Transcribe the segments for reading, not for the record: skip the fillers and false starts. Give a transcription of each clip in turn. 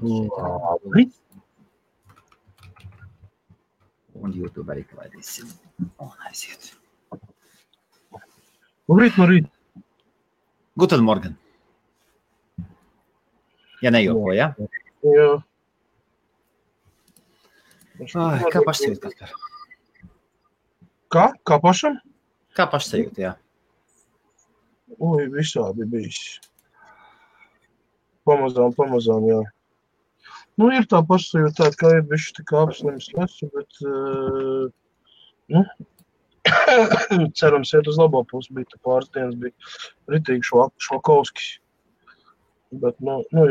Labi. Un YouTube arī klaidīsim. Un aiziet. Labrīt. Guten Morgen. Ja nejoko, ja? Jā. Ai, kā pašsajūt, Kaspar? Kā pašam? Kā pašsajūt, jā? Oi, visādi bijis. Pamazām, jā. Nu, ir tā pašsajūta tāda, kā ir bišķi tā kā apslims lesu, bet, cerams, iet uz labo pusi, bija tā pāris dienas, bija ritīgi švakovskis. Bet, nu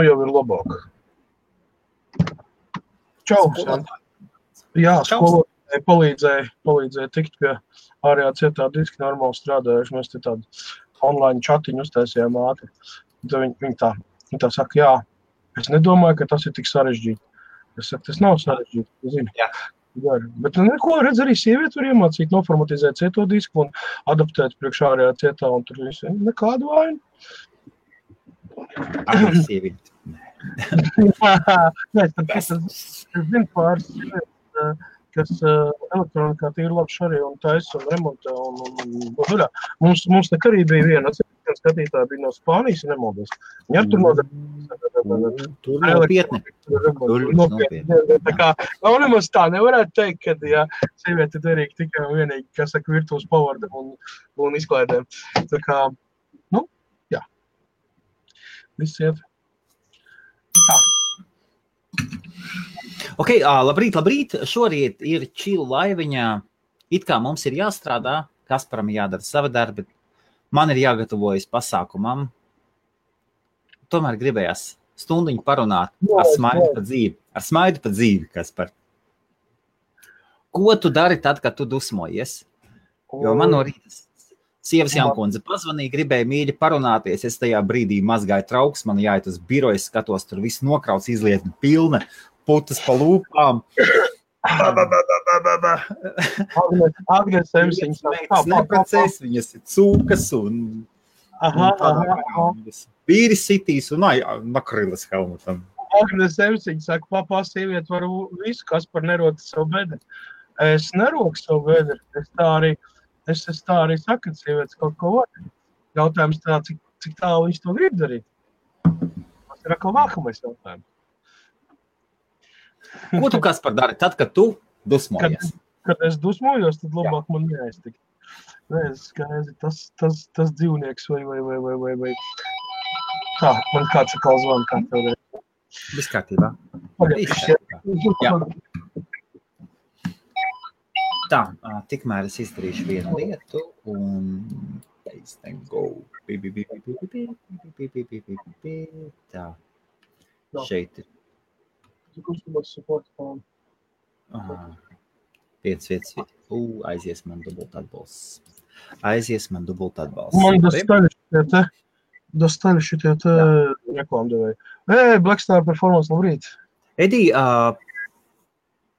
jau ir labāk. Čau, Santa. Jā, skolotāji palīdzēja tikt pie ārējā cietā diski normāli strādājuši. Mēs te tādu online chatiņu uztaisījām ātri. Viņi tā saka, jā, es nedomāju, ka tas ir tik sarežģīti. Es saku, tas nav sarežģīti, zini. Jā. Bet neko, redz, arī sievieti var iemācīt, noformatizēt cieto disku un adaptēt priekš ārējā cietā, un tur visi nekādu vainu. Arī sievieti. Nē, es zinu pāris, kas elektronikā tīri labi šarī un taisa un remontē. Mums nek arī bija viena skatītāja bija no Spānijas, ja nemaldos. Viņa tur nodarbības. Tur nopietni. Tā kā, nemaz tā nevarētu teikt, ka, ja sievieti derīgi tikai un vienīgi, kas saka, virtuves pavardam un izklaidēm. Tā kā, jā. Viss iet. Tā. Ok, labrīt. Šorīt ir čilu laiviņā. It kā mums ir jāstrādā, Kasparam jādara savi darbi. Man ir jāgatavojas pasākumam. Tomēr gribējās stundiņu parunāt ar smaidu pa dzīvi, Kaspar. Ko tu dari tad, kad tu dusmojies? Jo man no rīta sievas Jankundze pazvanīja, gribēja mīļi parunāties. Es tajā brīdī mazgāju trauks, man jāiet uz biroju, skatos, tur viss nokrauts, izlietni pilna, putas pa lūpām. Agnes Emsiņas. Neprecēs, viņas ir cūkas un vīri sitīs un nakrilas helmutam. Agnes Emsiņas saka, papā, sievieti var visu, kas par nerota savu bedri. Es neroku savu bedri. Es tā arī saku, ka sievietes kaut ko var. Jautājums tā, cik tālu viņš to grib darīt. Tas ir atkal nākamais jautājums. Ko tu, Kaspar, dari tad, kad tu dusmojies? Kad es dusmojos, tad labāk man neaiztikt. Nē, skaidri, tas dzīvnieks vai. Tā, man kāds atkal zvana, kā tev reiz. Viss kārtībā. Jā. Tā, tikmēr es izdarīšu vienu lietu un go. Tā, šeit ir. Vietas. Aizies man dubult atbalsts. Man dostali šitie te reklāmdevēji. Blackstar Performance, labrīt. Edī,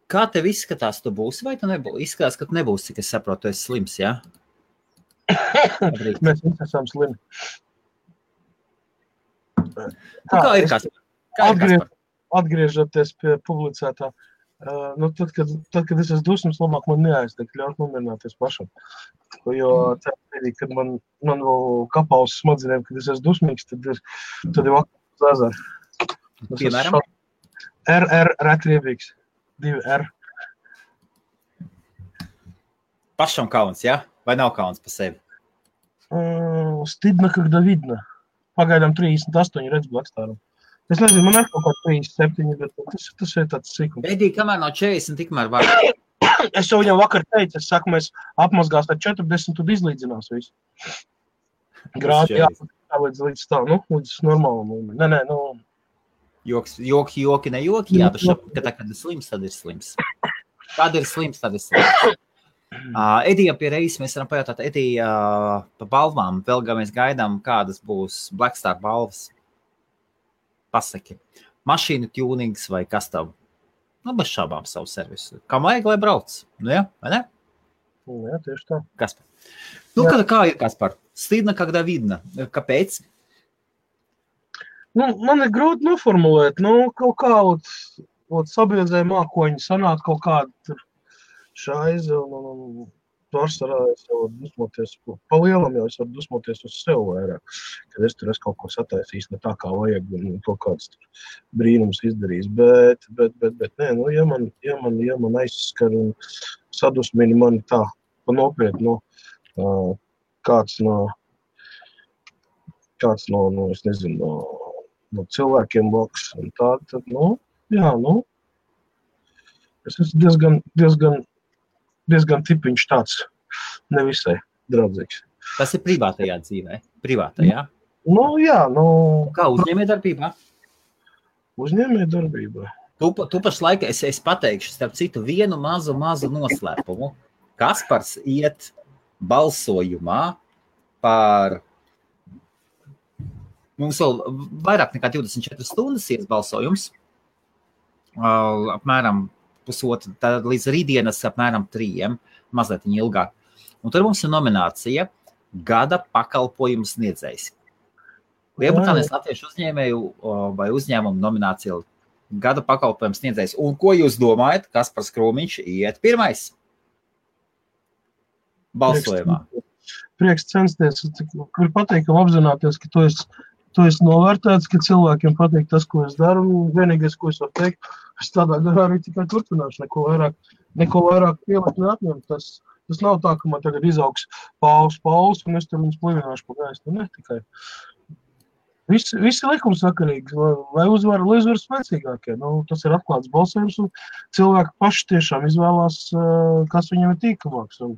kā tev izskatās, tu būsi vai tu nebūsi? Izskatās, ka tu nebūsi, cik es saprotu, tu esi slims, jā? Mēs visi esam slimi. Kā ir, Kaspar? Atgriežoties pie publicētā, tad, kad es esmu dusmas, labāk man neaiztikt, ļaut nomierināties pašam. Jo tādā, kad man vēl kapā uz smadzenēm, kad es esmu dusmīgs, tad ir vakar uz ezeru. Piemēram? RR retriebīgs. 2R. Pašam kauns, jā? Vai nav kauns pa sevi? Stidna, когда видно. Pagaidām 38 redz Blackstāram. Es nezinu, man ir kaut kā 37, bet tas ir tāds sīkums. Edī, kamēr nav 40, tikmēr var. Es jau viņam vakar teicu, es saku, mēs apmazgās ar 40, tad izlīdzinās visu. Grādi līdz tā, līdz normālam līmenim. Nē, Joki, ne joki, jā, ka tā, kad ir slims, tad ir slims. Kad ir slims, tad ir slims. Edija pie reizes mēs varam pajautāt, Edija, pa balvām, vēl mēs gaidām, kādas būs Blackstar balvas. Pasaki, mašīnu tunings vai kas tev? Bez šābām savu servisu. Kam vajag, lai brauc? Jā, vai ne? Jā, tieši tā. Kaspar. Kā ir, Kaspar? Stidna, когда видно. Kāpēc? Man ir grūti noformulēt, kaut kā, sabiedrē mākoņi sanāk kaut kādu tur šaizi un pārsvarā es jau varu dusmoties, pa lielam jau es varu dusmoties uz sev vairāk, kad es tur kaut ko sataisījis ne tā kā vajag un kaut kāds tur brīnums izdarījis, bet nē, ja man aizskar un sadusmini mani tā, pa nopietnu, kāds no, es nezinu, no cilvēkiem blakus un tā, tad, jā, es esmu diezgan tipiņš tāds, nevisai draudzīgs. Tas ir privātajā dzīvē? Privātajā? Jā. Kā uzņēmējdarbībā? Uzņēmējdarbībā. Tu pašlaik, es pateikšu, starp citu, vienu mazu noslēpumu. Kaspars iet balsojumā par... Mums vēl vairāk nekā 24 stundas ies balsojums. Apmēram pusotru, tad līdz rītdienas apmēram 3, mazliet ilgāk. Un tur mums ir nominācija Gada pakalpojums sniedzējs. Lielbritānijas latviešu uzņēmēju vai uzņēmumu nominācija Gada pakalpojums sniedzējs. Un ko jūs domājat, Kaspars Krūmiņš iet pirmais balsojumā? Prieks censties. Kur pateikam apzināties, ka tu esi novērtēts, ka cilvēkiem patīk tas, ko es daru. Un vienīgais, ko es varu teikt, es tādā garā arī tikai turpināšu. Neko vairāk pielikt neatņemt. Tas nav tā, ka man tagad izaugs pauls, un es tur viņus plivināšu pa gaistu. Ne tikai. Visi likumsakarīgi, lai uzvar spēcīgākie. Tas ir atklāts balsojums, un cilvēki paši tiešām izvēlās, kas viņam ir tīkamāks. Un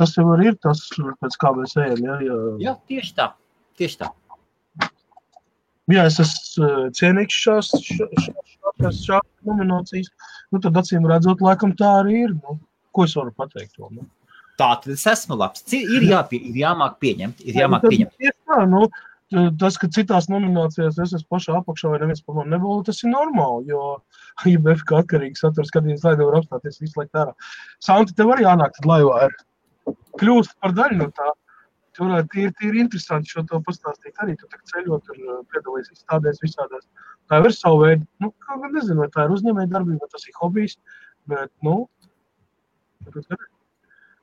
tas jau arī ir tas, pēc kā mēs ejam. Jā, tieši tā. Jā, es esmu cienīgs šās nominācijas. Tad acīm redzot, laikam tā arī ir. Ko es varu pateikt to? Tā, tad es esmu labs. Ir jāmāk pieņemt. Tieši tā, tas, ka citās nominācijās es esmu pašā apakšā vai neviens par mani nebūtu, tas ir normāli, jo IBF kā atkarīgi satura skatījums laivā var apstāties visu laiku ārā. Santi, tev arī jānāk tad laivā ir kļūst par daļu no tā. Tu varētu tīri interesanti šo to pastāstīt arī. Tu tak ceļot un piedalīs izstādēs visādās. Tā ir savu veidu. Kā gan nezinu, vai tā ir uzņēmējdarbība, vai tas ir hobijs, bet,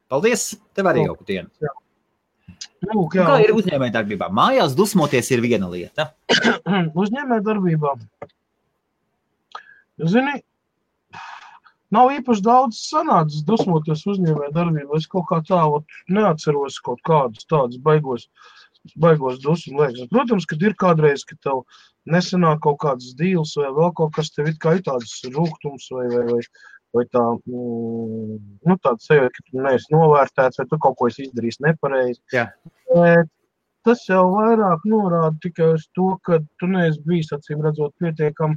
Paldies, tev arī jauku dienu. Jā. Kā ir uzņēmējdarbībā? Mājās dusmoties ir viena lieta. Uzņēmējdarbībā. Zini, nav īpaši daudz sanācis dusmoties uzņēmējdarbībā. Es kaut kā tā neatceros kaut kādus tādus baigos dusmu liekas. Protams, kad ir kādreiz, ka tev nesanāk kaut kāds dīls vai vēl kaut kas, tev it kā ir tāds rūgtums vai tā, tāds sajūta, ka tu neesi novērtēts, vai tu kaut ko esi izdarījis nepareizi. Jā. Tas jau vairāk norāda tikai uz to, ka tu neesi bijis, acīm redzot, pietiekam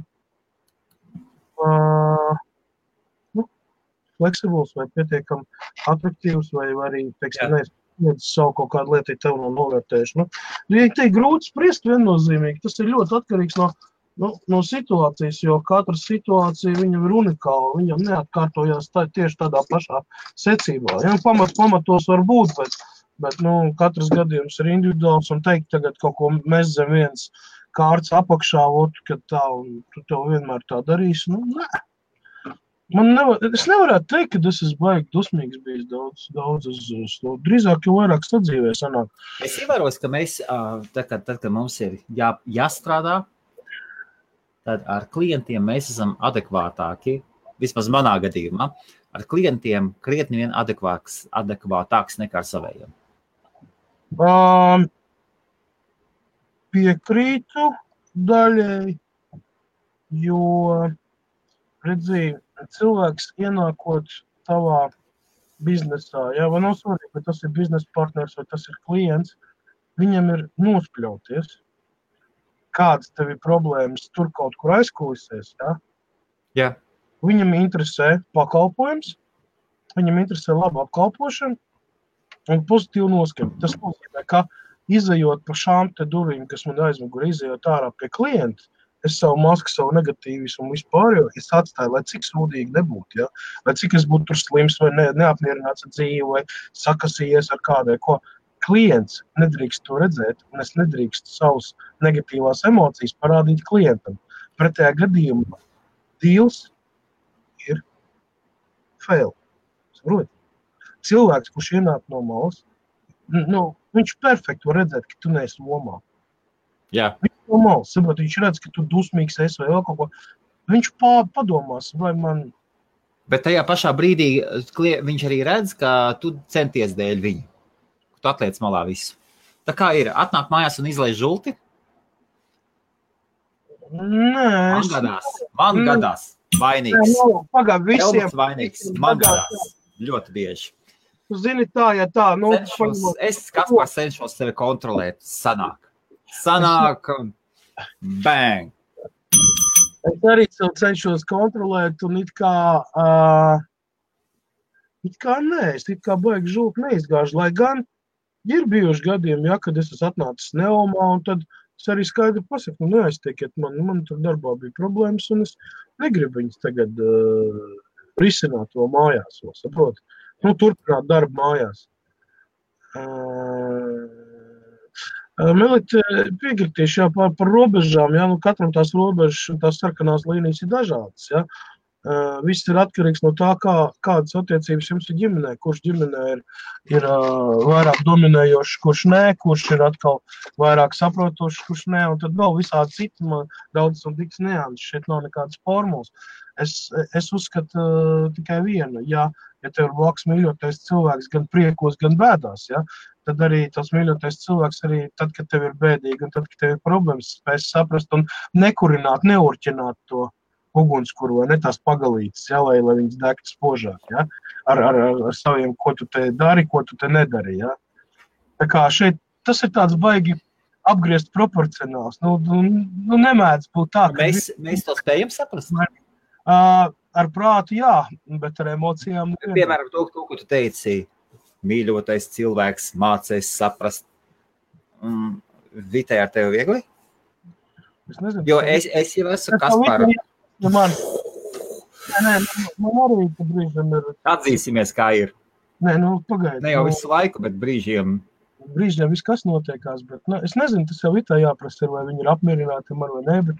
fleksibls vai pietiekam atraktīvs vai arī, teiksim, neesi savu kaut kādu lietu tev no novērtējuši. Ja te ir grūti spriest viennozīmīgi, tas ir ļoti atkarīgs no situācijas, jo katra situācija viņam ir unikāla, viņam neatkārtojās tieši tādā pašā secībā. Ja, pamatos var būt, bet katrs gadījums ir individuāls un teikt tagad kaut ko mēs zem viens kārts apakšā, kad tā, un tu tev vienmēr tā darīsi, nē. Es nevarētu teikt, ka es esmu baigi dusmīgs bijis daudz uz to. Drīzāk jau vairāk sadzīvē sanāk. Es ievēros, ka mēs, tad, kad mums ir jāstrādā, tad ar klientiem mēs esam adekvātāki, vismaz manā gadījumā, ar klientiem krietni vien adekvātāks nekā ar savējiem. Piekrītu daļai, jo, redzīju, cilvēks ienākot tavā biznesā, vai nav svarīgi, vai tas ir biznesa partners vai tas ir klients, viņam ir nospļauties. Kādas tev ir problēmas tur kaut kur aizkulisēs, Jā. Viņam interesē pakalpojums, viņam interesē laba apkalpošana un pozitīva noskaņa. Tas nozīmē, ka izejot pa šām te durvīm, kas man aizmugurē, izejot ārā pie klienta, es savu masku, savu negatīvismu un vispār, jo es atstāju, lai cik sūdīgi nebūtu, lai cik es būtu tur slims vai neapmierināts ar dzīvi vai sakasījies ar kādai, ko. klients nedrīkst to redzēt, un es nedrīkstu savus negatīvās emocijas parādīt klientam. Pretējā gadījumā deals ir fail. Saproti? Cilvēks, kurš ienāk no malas, viņš perfekti var redzēt, ka tu neesi lomā. Jā. Viņš no malas, saproti, viņš redz, ka tu dusmīgs esi vai vēl kaut ko. Viņš padomās, vai man... Bet tajā pašā brīdī viņš arī redz, ka tu centies dēļ viņu. Tu atliec malā visu. Tā kā ir, atnāk mājās un izlaiž žulti? Nē, Man gadās. Vainīgs. Pagād visiem. Elmats vainīgs. Man gadās. Ļoti bieži. Tu zini tā, ja tā. Es Kaspars cenšos sevi kontrolēt. Sanāk. Bang. Es arī cenšos kontrolēt un it kā nē, es it kā baigi žulti neizgāžu, lai gan ir bijuši gadījumi, ja, kad es esmu atnācis neomā, un tad es arī skaidri pasaku, neaiztiekiet man tur darbā bija problēmas, un es negribu viņus tagad risināt to mājās, saproti. Turpināt darbu mājās. Melita piekritīšu par robežām, ja, katram tās robežas, tās sarkanās līnijas ir dažādas, ja. Viss ir atkarīgs no tā, kādas attiecības jums ir ģimenē, kurš ģimenē ir vairāk dominējošs, kurš nē, kurš ir atkal vairāk saprotošs, kurš nē, un tad vēl visādi citi, daudz un tiks neāns, šeit nav nekādas formulas. Es uzskatu tikai vienu, ja tev ir blakus mīļotais cilvēks gan priekos, gan bēdās, ja, tad arī tas mīļotais cilvēks arī tad, kad tev ir bēdīgi un tad, kad tev ir problēmas, spēs saprast un nekurināt, neurķināt to ugunskuru vai ne tās pagalītes, ja, lai viņas degtu spožāk, ja, ar saviem, ko tu te dari, ko tu te nedari, ja. Tā kā šeit tas ir tāds baigi apgriezt proporcionāls, nemēdz būt tā, ka... Mēs to spējam saprast? Ar prātu, jā, bet ar emocijām... Piemēram, to, ko tu teici, mīļotais cilvēks mācēs saprast, Vitai ar tevi viegli? Es nezinu. Jo es jau esmu Kasparu. Man arī brīžiem ir... Atzīsimies, kā ir. Nē, pagaidi. Ne jau visu laiku, bet brīžiem... Brīžiem viss kas notiekās, bet es nezinu, tas jau Vitā jāprasa, vai viņi ir apmierināti ar vai nē, bet,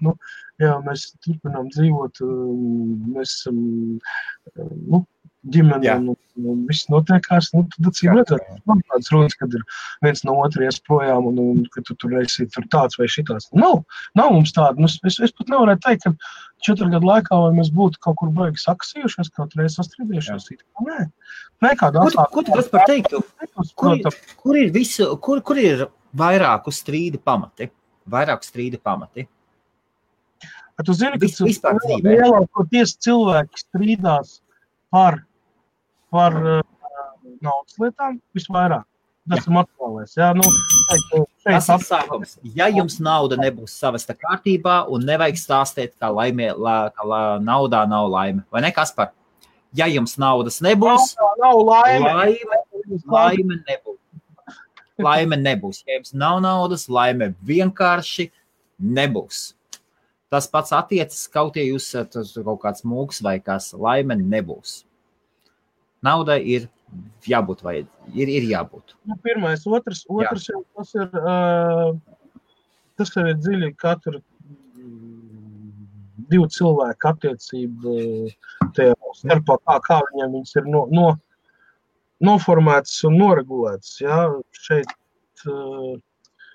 jā, mēs turpinām dzīvot, mēs esam, ģimene, un viss notiekās, tad acīm redzēt, man tādas runas, kad ir viens no otra ies projām, un ka tu tur esi tur tāds vai šitās. Nav mums tāda, es pat nevarētu teikt, ka 4 gadu laikā, vai mēs būtu kaut kur baigi saksījušies, kaut reiz sastrīdījušies, nē, kādā atklāt. Ko tu par teiktu? Kur ir vairāku strīdu pamati? Tu zini, ka lielākoties cilvēki strīdās par naudas lietām visvairāk. Tas ir materiālais. Jā, tas ir sākums. Ja jums nauda nebūs savesta kārtībā un nevajag stāstīt, ka naudā nav laime. Vai ne, Kaspar? Ja jums naudas nebūs, laime nebūs. Laime nebūs. Ja jums nav naudas, laime vienkārši nebūs. Tas pats attiecas, kaut ja jūs kaut kāds mūks vai kas, laime nebūs. Naudai ir jābūt ir jābūt. Pirmais, otrs jau tas ir dziļi katru 2 cilvēku attiecību tajā starpā, kā viņiem viņas ir noformētas un noregulētas. Ja?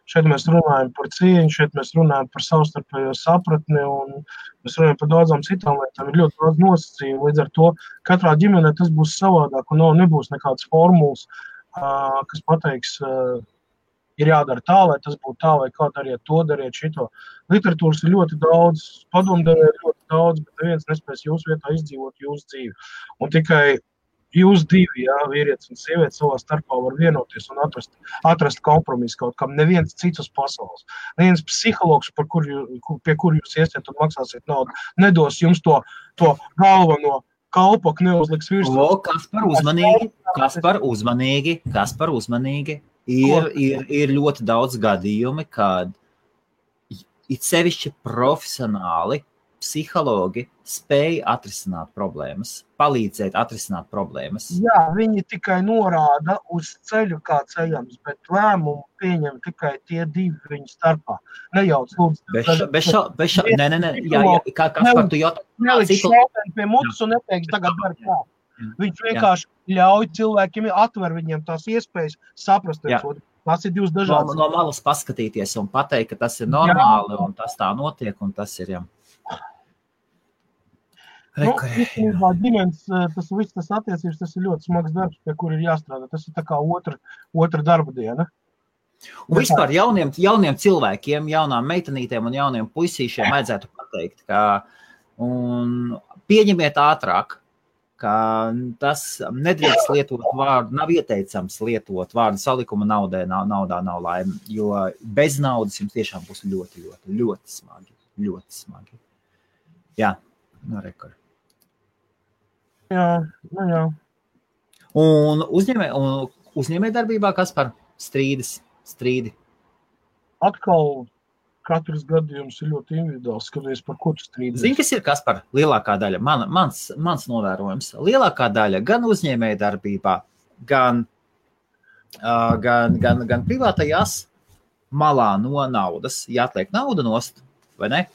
Šeit mēs runājam par cieņu, šeit mēs runājam par savstarpējo sapratni un mēs runājam par daudzām citām lietām. Ir ļoti daudz nosacījumu. Līdz ar to katrā ģimenē tas būs savādāk un nebūs nekādas formulas, kas pateiks, ir jādara tā, lai tas būtu tā, vai kā dariet to, dariet šito. Literatūras ir ļoti daudz, padomdevēja ir ļoti daudz, bet neviens nespēs jūsu vietā izdzīvot jūsu dzīvi. Un tikai jūs divi, vīrietis un sieviete savā starpā var vienoties un atrast kompromisu kaut kam. Neviens cits uz pasaules. Neviens psihologs, pie kur jūs iesiet un maksāsiet naudu, nedos jums to galveno kalpoku, neuzliks virsū. Kaspar uzmanīgi. Ir ļoti daudz gadījumi, kad it sevišķi profesionāli psihologi spēj atrisināt problēmas, palīdzēt atrisināt problēmas. Jā, viņi tikai norāda uz ceļu, kā ceļams, bet lēmumu pieņem tikai tie divi viņu starpā. Nejauc, lūdzu. Nē, jā, kā par tu jautā? Neliks šauteni pie mutas un neteiks tagad dar kā. Viņš vienkārši ļauj cilvēkiem, atver viņiem tās iespējas saprast. Tas ir divas dažādas. No malas paskatīties un pateikt, ka tas ir normāli un tas tā notiek un tas ir, jā. Ģimenes, tas viss, tas attiecības, tas ir ļoti smags darbs, pie kur ir jāstrādā. Tas ir tā kā otra darba diena. Un vispār jauniem cilvēkiem, jaunām meitenītēm un jauniem puisīšiem vajadzētu pateikt, ka pieņemiet ātrāk, ka tas nedrīkst lietot vārdu, nav ieteicams lietot vārdu salikuma naudā nav laime, jo bez naudas jums tiešām būs ļoti, ļoti, ļoti smagi. Ļoti smagi. Jā, no rekord. Jā. Un uzņēmē darbībā, kas par strīdi? Atkal katrs gadījums ir ļoti individuāls, skaties, par ko tu strīdies. Zini, kas ir kas par lielākā daļa? Mans novērojums. Lielākā daļa gan uzņēmē darbībā, gan privātajās malā no naudas, ja atliek nauda nost, vai ne?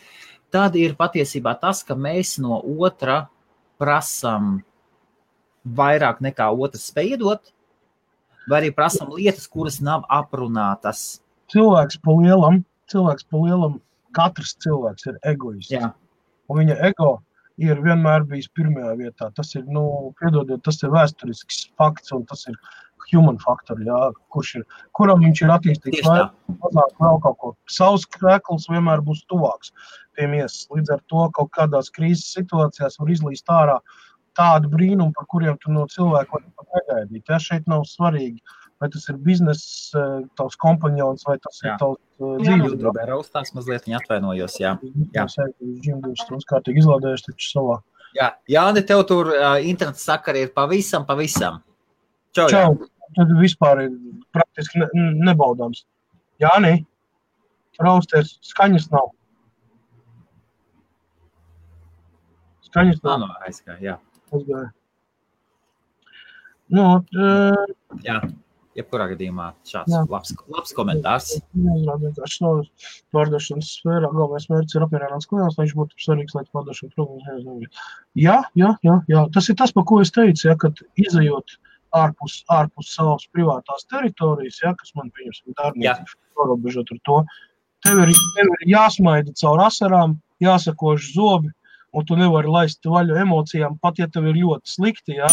Tad ir patiesībā tas, ka mēs no otra prasam vairāk nekā otrs spēj iedot, vai arī prasam lietas, kuras nav aprunātas. Cilvēks pa lielam, katrs cilvēks ir egoists. Jā. Un viņa ego ir vienmēr bijis pirmajā vietā. Tas ir, piedodiet, tas ir vēsturisks fakts, un tas ir human faktor, jā, kuram viņš ir attīstīts mazāk vēl kaut ko. Savs krekls vienmēr būs tuvāks pie miesas. Līdz ar to kaut kādās krīzes situācijās var izlīst ārā tādu brīnumu, par kuriem tu no cilvēku var pat negaidīt. Ja šeit nav svarīgi, vai tas ir bizness, tavs kompanjons, vai tas ir tavs dzīves. Jā, raustās mazliet, viņa atvainojos, jā. Viņš stundas kārtīgi izlādējuši taču savā. Jā, Jāni, tev tur internets sakari ir pavisam. Čau. Tad vispār ir praktiski nebaudāms. Jāni, rausties, skaņas nav. No, aizgāja, jā. Aizgāja. Jā, jebkurā gadījumā šāds labs komentārs. Vienkārši no pārdošanas sfērā galvenais mērķis ir apmierināts klients, lai viņš būtu svarīgs, lai pārdošana problēmas. Jā. Tas ir tas, par ko es teicu, ja, kad izejot ārpus savas privātās teritorijas, ja, kas man pieņemsim darbniecības pārobežot ar to, tev ir jāsmaida caur asarām, jāsakož zobi, un tu nevari laist vaļu emocijām, pat ja tev ir ļoti slikti, ja.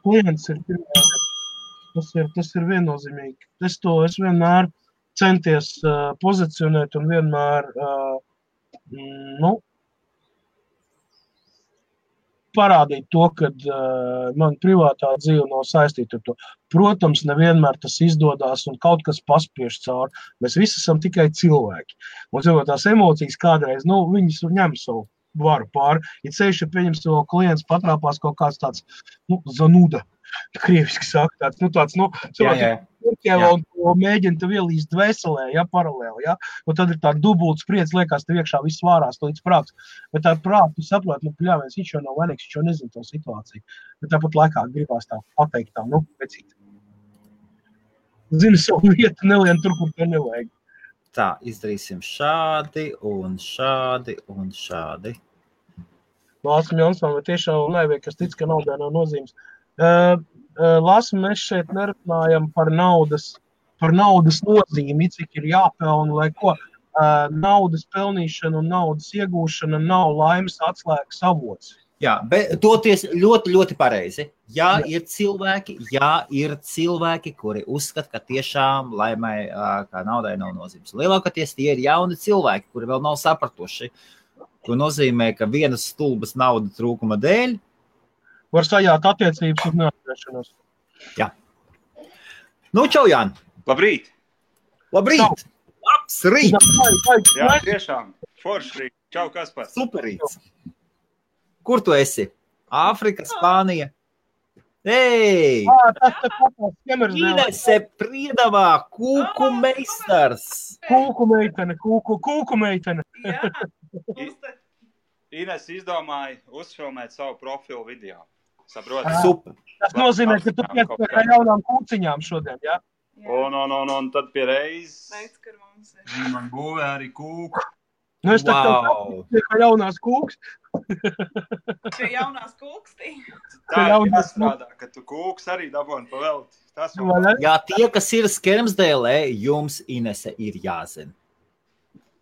Klients ir pirmā, tas ir viennozīmīgi. Es vienmēr centies pozicionēt un vienmēr, parādīt to, kad man privātā dzīve nav saistīta ar to. Protams, nevienmēr tas izdodās un kaut kas paspiež cauri. Mēs visi esam tikai cilvēki. Un tās emocijas kādreiz, viņas ņem savu varu pāri. Ja ceļš, ja pieņems to klients patrāpās kaut kāds tāds, zanuda, krieviski saka, tāds, un mēģina tev ielīst dvēselē, ja, paralēli, ja, un tad ir tā dubulta spriedze, liekas, tev iekšā viss vārās, līdz prāts, bet tā prāt, tu saproti, pļāviens, viņš jau nav vainīgs, viņš jau nezina to situāciju, bet tāpat laikā gribās tā pateikt tā, pēcīt. Zini savu vietu, nelien tur, kur te nevajag. Tā, izdarīsim šādi un šādi un šādi. Lāsam Jansvam, vai tiešām nevajag, kas tic, ka naudai nav nozīmes. Lāsam, mēs šeit nerunājam par naudas nozīmi, cik ir jāpelna, lai ko. Naudas pelnīšana un naudas iegūšana nav laimes atslēgas avots. Jā, bet toties ļoti, ļoti pareizi. Jā, ir cilvēki, kuri uzskata, ka tiešām laimai, kā naudai nav nozīmes. Lielākoties tie ir jauni cilvēki, kuri vēl nav sapratuši, ko nozīmē, ka vienas stulbas nauda trūkuma dēļ var sajāt attiecības un neatgriešanos. Jā. Čau, Jāni. Labrīt. Labrīt. Labs rīt. Jā, tiešām. Forši rīt. Čau, Kaspar. Superīts. Kur tu esi? Āfrika, Spānija? Ei! Inese Priedavā, kūku meistars. Kūku meitene. Jā. Ines izdomāja uzfilmēt savu profilu video. Saproti? Super. Tas nozīmē, ka tu piespēj ar jaunām kūciņām šodien, jā? Un tad pie reizes Teic, ka mums ir. viņi man būvē arī kūku. Nu, es tā Wow. kā jaunās kūks. Pie jaunās kūkstī. Tā Ka ir jāstrādā, ka tu kūks arī daboni pa velti. Tas jau Jā, tie, kas ir Skermsdēlē, jums Inese ir jāzina.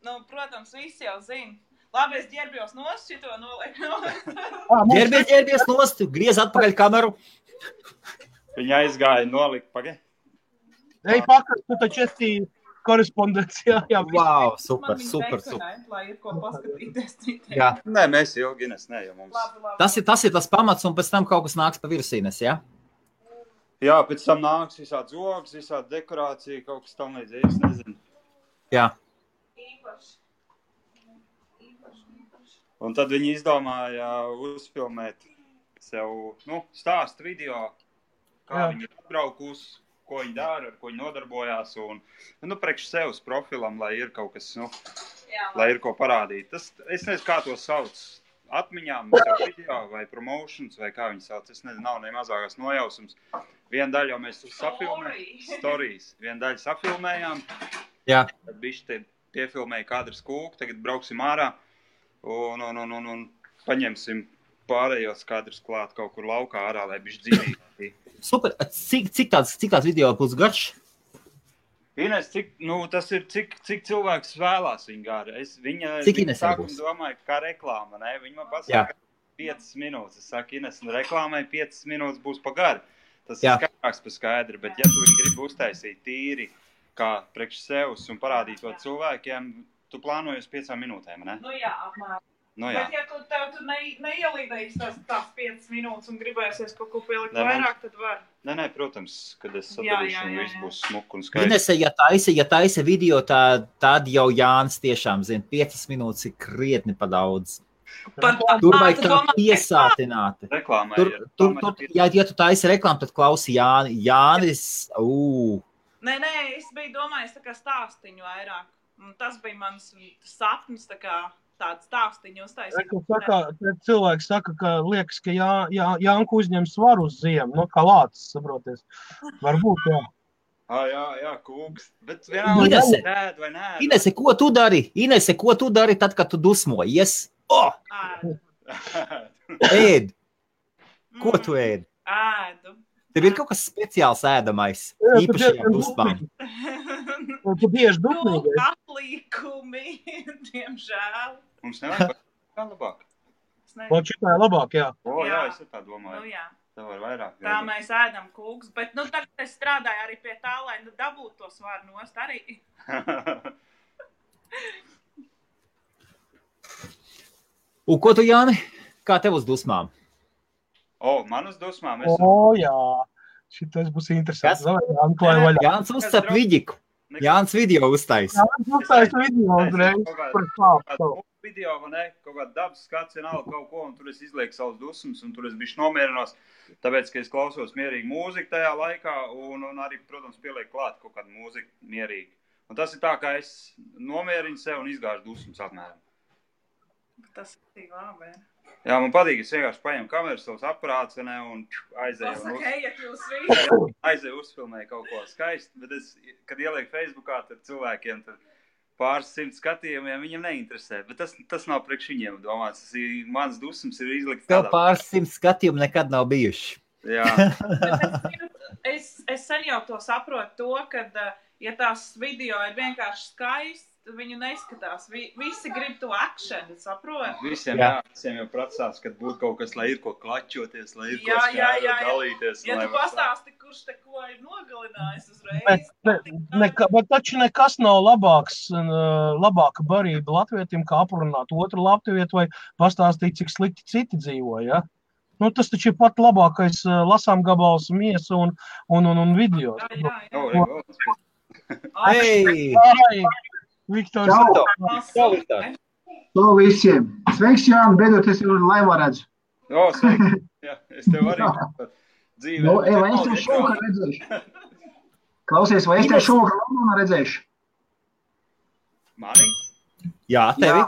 Nu, protams, visi jau zina. Labi, es ģērbjos nost, šito nolieku. Ģērbies nost, griez atpakaļ kameru. viņa aizgāja nolikt pagaid. Ej, pakaļ, tu taču esi korespondencijā. Jā, Wow, super. Lai ir ko paskatīties citiem. Jā. Nē, mēs ilgi Ines, ne, jo mums. Labi. Tas ir tas pamats, un pēc tam kaut kas nāks pa virsīnes, jā? Jā, pēc tam nāks visādi zogs, visādi dekorācija, kaut kas tam līdzīgs, es nezinu. Jā. Īpaši. Un tad viņi izdomāja uzfilmēt sev, stāstu video, kā viņi atbraukus, ko viņi dara, ar ko viņi nodarbojās, un, priekš sevs profilam, lai ir kaut kas, lai ir ko parādīt. Tas, es nezinu, kā to sauc, atmiņām, sev video vai promotions, vai kā viņi sauc, es nezinu, nav ne mazākās nojausums. Vienu daļu jau mēs stories, vienu daļu safilmējām, Jā. tad bišķi te piefilmēja kadras kūku, tagad brauksim ārā, un paņemsim pārējos kadrus klāt kaut kur laukā ārā, lai bišķi dzīvīgi. Super. Cik tāds video būs garš? Ines, tas ir, cik cilvēks vēlās viņu gāri. Cik Ines sākuma būs? domāju, kā reklāma, ne? Viņa man pasaka 5 minūtes. Es saku, Ines, reklāmai 5 minūtes būs pa gari. Tas ir skaidrāks pa skaidri, bet ja tu viņu gribi uztaisīt tīri, kā priekš sevs un parādīt to cilvēkiem, tu plānoji uz 5 minūtēm, ne? Nu jā, apmēram. Jā. Bet ja tu neielīdējies tās 5 minūtes un gribēsies kaut ko pielikt vairāk, tad var. Nē, protams, kad es sadarīšu un viss būs smuk un skaisti. Inese, ja taisa video, tad jau Jānis tiešām zina, 5 minūtes ir krietni pa daudz. Tur vajag tā piesātināti. Reklāmai Ja tu taisi reklāmu, tad klausi Jānis. Nē, es biju domājis tā kā stāstiņu vairāk. Un tas bija mans sapnis, tā kā tādu stāstiņu uztaisīt. Cilvēks saka, ka liekas, ka Jānku uzņem svaru uz ziemu, kā lācis, saproties. Varbūt, jā. Jā, kūks. Bet vienalga ēd vai nē. Inese, ko tu dari tad, kad tu dusmojies? Ēd. Ko tu ēd? Ēdu. Tev ir kaut kas speciāls ēdamais, īpaši ar dusmām. Tu bieži dusmīgais. Atlīkumi, diemžēl. Mums nevajag kā labāk. Man šitā ir labāk, jā. Jā, es tā domāju. Nu jā. Tev var vairāk. Tā mēs ēdam kūks, bet tagad es strādāju arī pie tā, lai dabūtu to svaru nost arī. Un ko tu, Jāni? Kā tev uz dusmām? Man uz dusmām? Jā. Šitais būs interesants. Jānis uzcep vidiku. Jānis video uztais. Jānis uztais video uzreiz. Video, vai ne? Kaut kāda dabas skats, vienalga kaut ko, un tur es izlieku savus dusmas, un tur es bišķi nomierinos, tāpēc, ka es klausos mierīgi mūziku tajā laikā, un arī, protams, pielieku klāt kaut kādu mūziku mierīgi. Un tas ir tā, kā es nomierinu sev un izgāžu dusmas apmēram. Tas ir tik labi. Jā, man patīk, es vienkārši paņemu kameru, savus aparātus, un aizēju uzfilmēju kaut ko skaisti, bet es, kad ielieku Facebookā, tad cilvēkiem tad pāris 100 skatījumiem viņam neinteresē, bet tas nav priekš viņiem domāts. Mans dusmas ir izlikt tādā. Tev pāris 100 skatījumu nekad nav bijuši. Jā. Es sen jau to saprotu to, kad, ja tās video ir vienkārši skaisti, viņu neskatās. Visi grib to akšanu, saprot? Visiem jau pracās, kad būtu kaut kas, lai ir ko klačoties, lai ir ko skādot, dalīties. Ja tu pastāsti, kurš te ko ir nogalinājis uzreiz. Bet taču nekas nav labāka barība latvietim, kā aprunāt otru latvietu vai pastāstīt, cik slikti citi dzīvo, ja? Tas taču ir pat labākais lasām gabals miesa un video. Jā. Viktors. To visiem. Sveiks, Jāni, beidzot es jau laivā redzu. Sveiks. Jā, es tev arī dzīvē. Vai es tev šovakar redzēšu? Klausies, vai es tev šovakar Londonā redzēšu? Mani? Jā, tevi.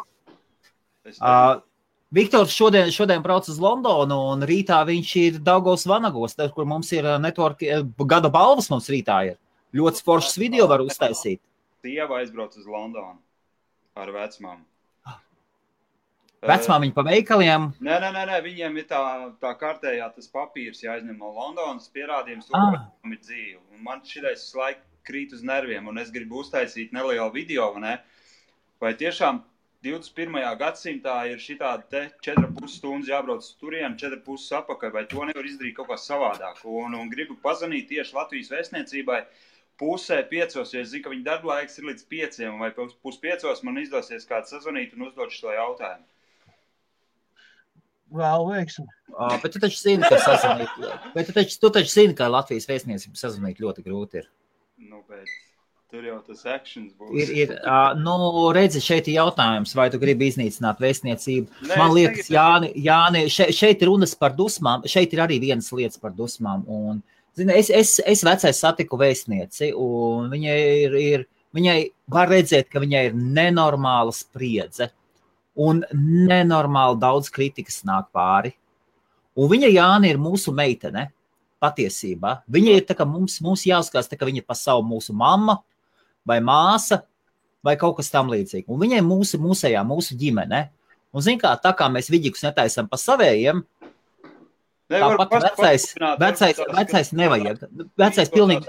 Viktors šodien brauc uz Londonu, un rītā viņš ir Daugavas Vanagos, kur mums ir network, gada balvas mums rītā ir. Ļoti foršas video var uztaisīt. Sieva aizbrauc uz Londonu ar vecmāmu. Vecmāmiņa pa veikaliem? Nē, viņiem ir tā kārtējā tas papīrs jāizņem no Londonas, pierādījums to, ka viņam ir dzīve. Un man šitais laika krīt uz nerviem, un es gribu uztaisīt nelielu video, vai tiešām 21. gadsimtā ir šitādi te 4,5 stundas jābrauc turien, 4,5 apakaļ, vai to nevar izdarīt kaut kā savādāk. Un gribu pazvanīt tieši Latvijas vēstniecībai 4:30, ja es zinu, ka viņa darba laiks ir līdz 5, vai 4:30 man izdosies kāds sazvanīt un uzdot šo jautājumu. Vēl veiksim. Bet tu taču zini, ka sazvanīt. Bet tu taču zini, ka Latvijas vēstniecība sazvanīt ļoti grūti ir. Bet tur jau tas actions būs. Redzi, šeit ir jautājums, vai tu gribi iznīcināt vēstniecību. Man liekas, Jāni, šeit ir runas par dusmām, šeit ir arī vienas lietas par dusmām. Un, zini, es vecais satiku vēstnieci, un viņai var redzēt, ka viņai ir nenormāla spriedze, un nenormāli daudz kritikas nāk pāri. Un viņa, Jāni, ir mūsu meitene, patiesībā. Viņa ir tā, ka mums jāskatās, tā, ka viņa ir pa savu mūsu mamma, vai māsa, vai kaut kas tam līdzīgi. Un viņai mūsu ģimene. Un zin kā, tā kā mēs viģikus netaisam pa savējiem, tāpat vecais nevajag. Vecais pilnīgi,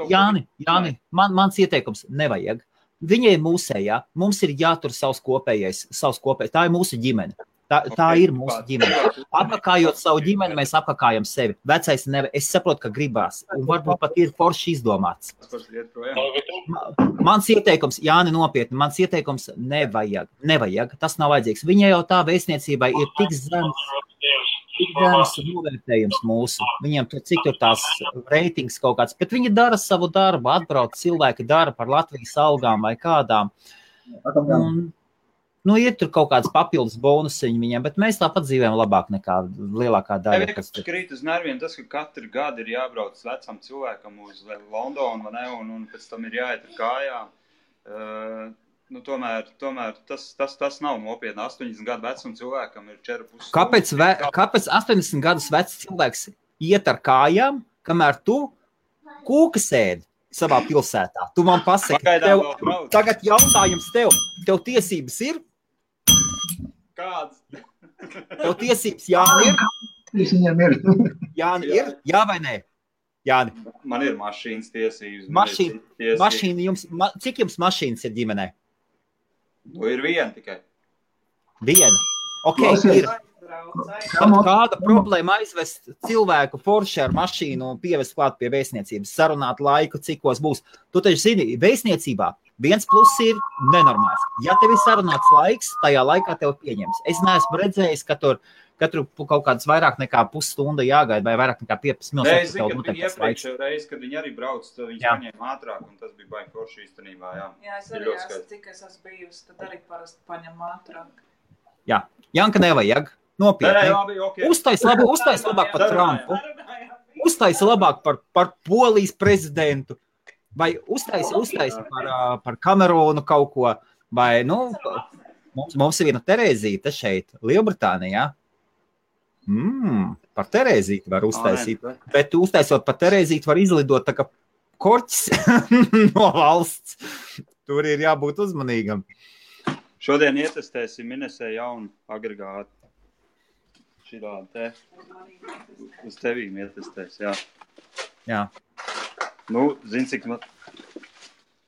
Jāni, mans ieteikums nevajag. Viņai mūsējā, mums ir jātur savs kopējais, tā ir mūsu ģimene. Tā ir mūsu ģimene. Apakājot savu ģimeni, mēs apakājam sevi. Vecais nevajag. Es saprotu, ka gribās. Un varbūt pat ir forši izdomāts. Mans ieteikums, Jāni, nopietni, mans ieteikums nevajag. Tas nav vajadzīgs. Viņai jau tā vēstniecībai ir tik zems novērtējums mūsu. Viņiem cik tur tās reitings kaut kāds. Bet viņi dara savu darbu, atbrauc cilvēki dara par Latvijas algām vai kādām. Un, ir tur kaut kāds papildus bonusiņi viņiem, bet mēs tāpat dzīvējam labāk nekā lielākā daļa. Vienkārši krīt uz nerviem tas, ka katru gadu ir jābrauc vecam cilvēkam uz Londonu, un pēc tam ir jāiet ar kājām. Tomēr tas nav nopietni. 80 gadu vecum cilvēkam ir 4,5. Kāpēc 80 gadus vecs cilvēks iet ar kājām, kamēr tu kūka sēdi savā pilsētā? Tu man pasaki, tagad jautājums tev tiesības ir? Kāds? Tev tiesības Jāni ir? Jāni ir? Jā vai nē? Jāni. Man ir mašīnas tiesības. Cik jums mašīnas ir ģimenē? Ir viena tikai. Viena? Ok, ir. Kāda problēma aizvest cilvēku forši ar mašīnu un pievest klāt pie vēstniecības, sarunāt laiku, cikos būs? Tu taču zini, vēstniecībā viens pluss ir nenormāls. Ja tev ir sarunāts laiks, tajā laikā tev pieņems. Es neesmu redzējis, ka tur katru kaut kāds vairāk nekā pusstunda jāgaida vai vairāk nekā 15 minūtes. Es zinu, ka viņi iepriekšējā reizi, kad viņi arī brauc, tad viņi paņēma ātrāk, un tas bija baigi forši īstenībā. Jā, es arī cik es esmu bijusi, tad arī parasti paņem ātrāk. Jā, Janka nevajag. Nopietni. Okay. Uztais labāk par Trumpu. Uztais labāk par Polijas prezidentu. Vai uztais par Kamerūnu kaut ko. Vai, mums ir viena Terēzīte šeit, Lielbritānijā. Par Terēzīti var uztaisīt. Bet uztaisot par Terēzīti var izlidot tā kā korķis no valsts. Tur ir jābūt uzmanīgam. Šodien ietestēsim Minesē jaunu agregātu. Šitādi te. Uz tevīm ietestēs, jā. Zini, cik man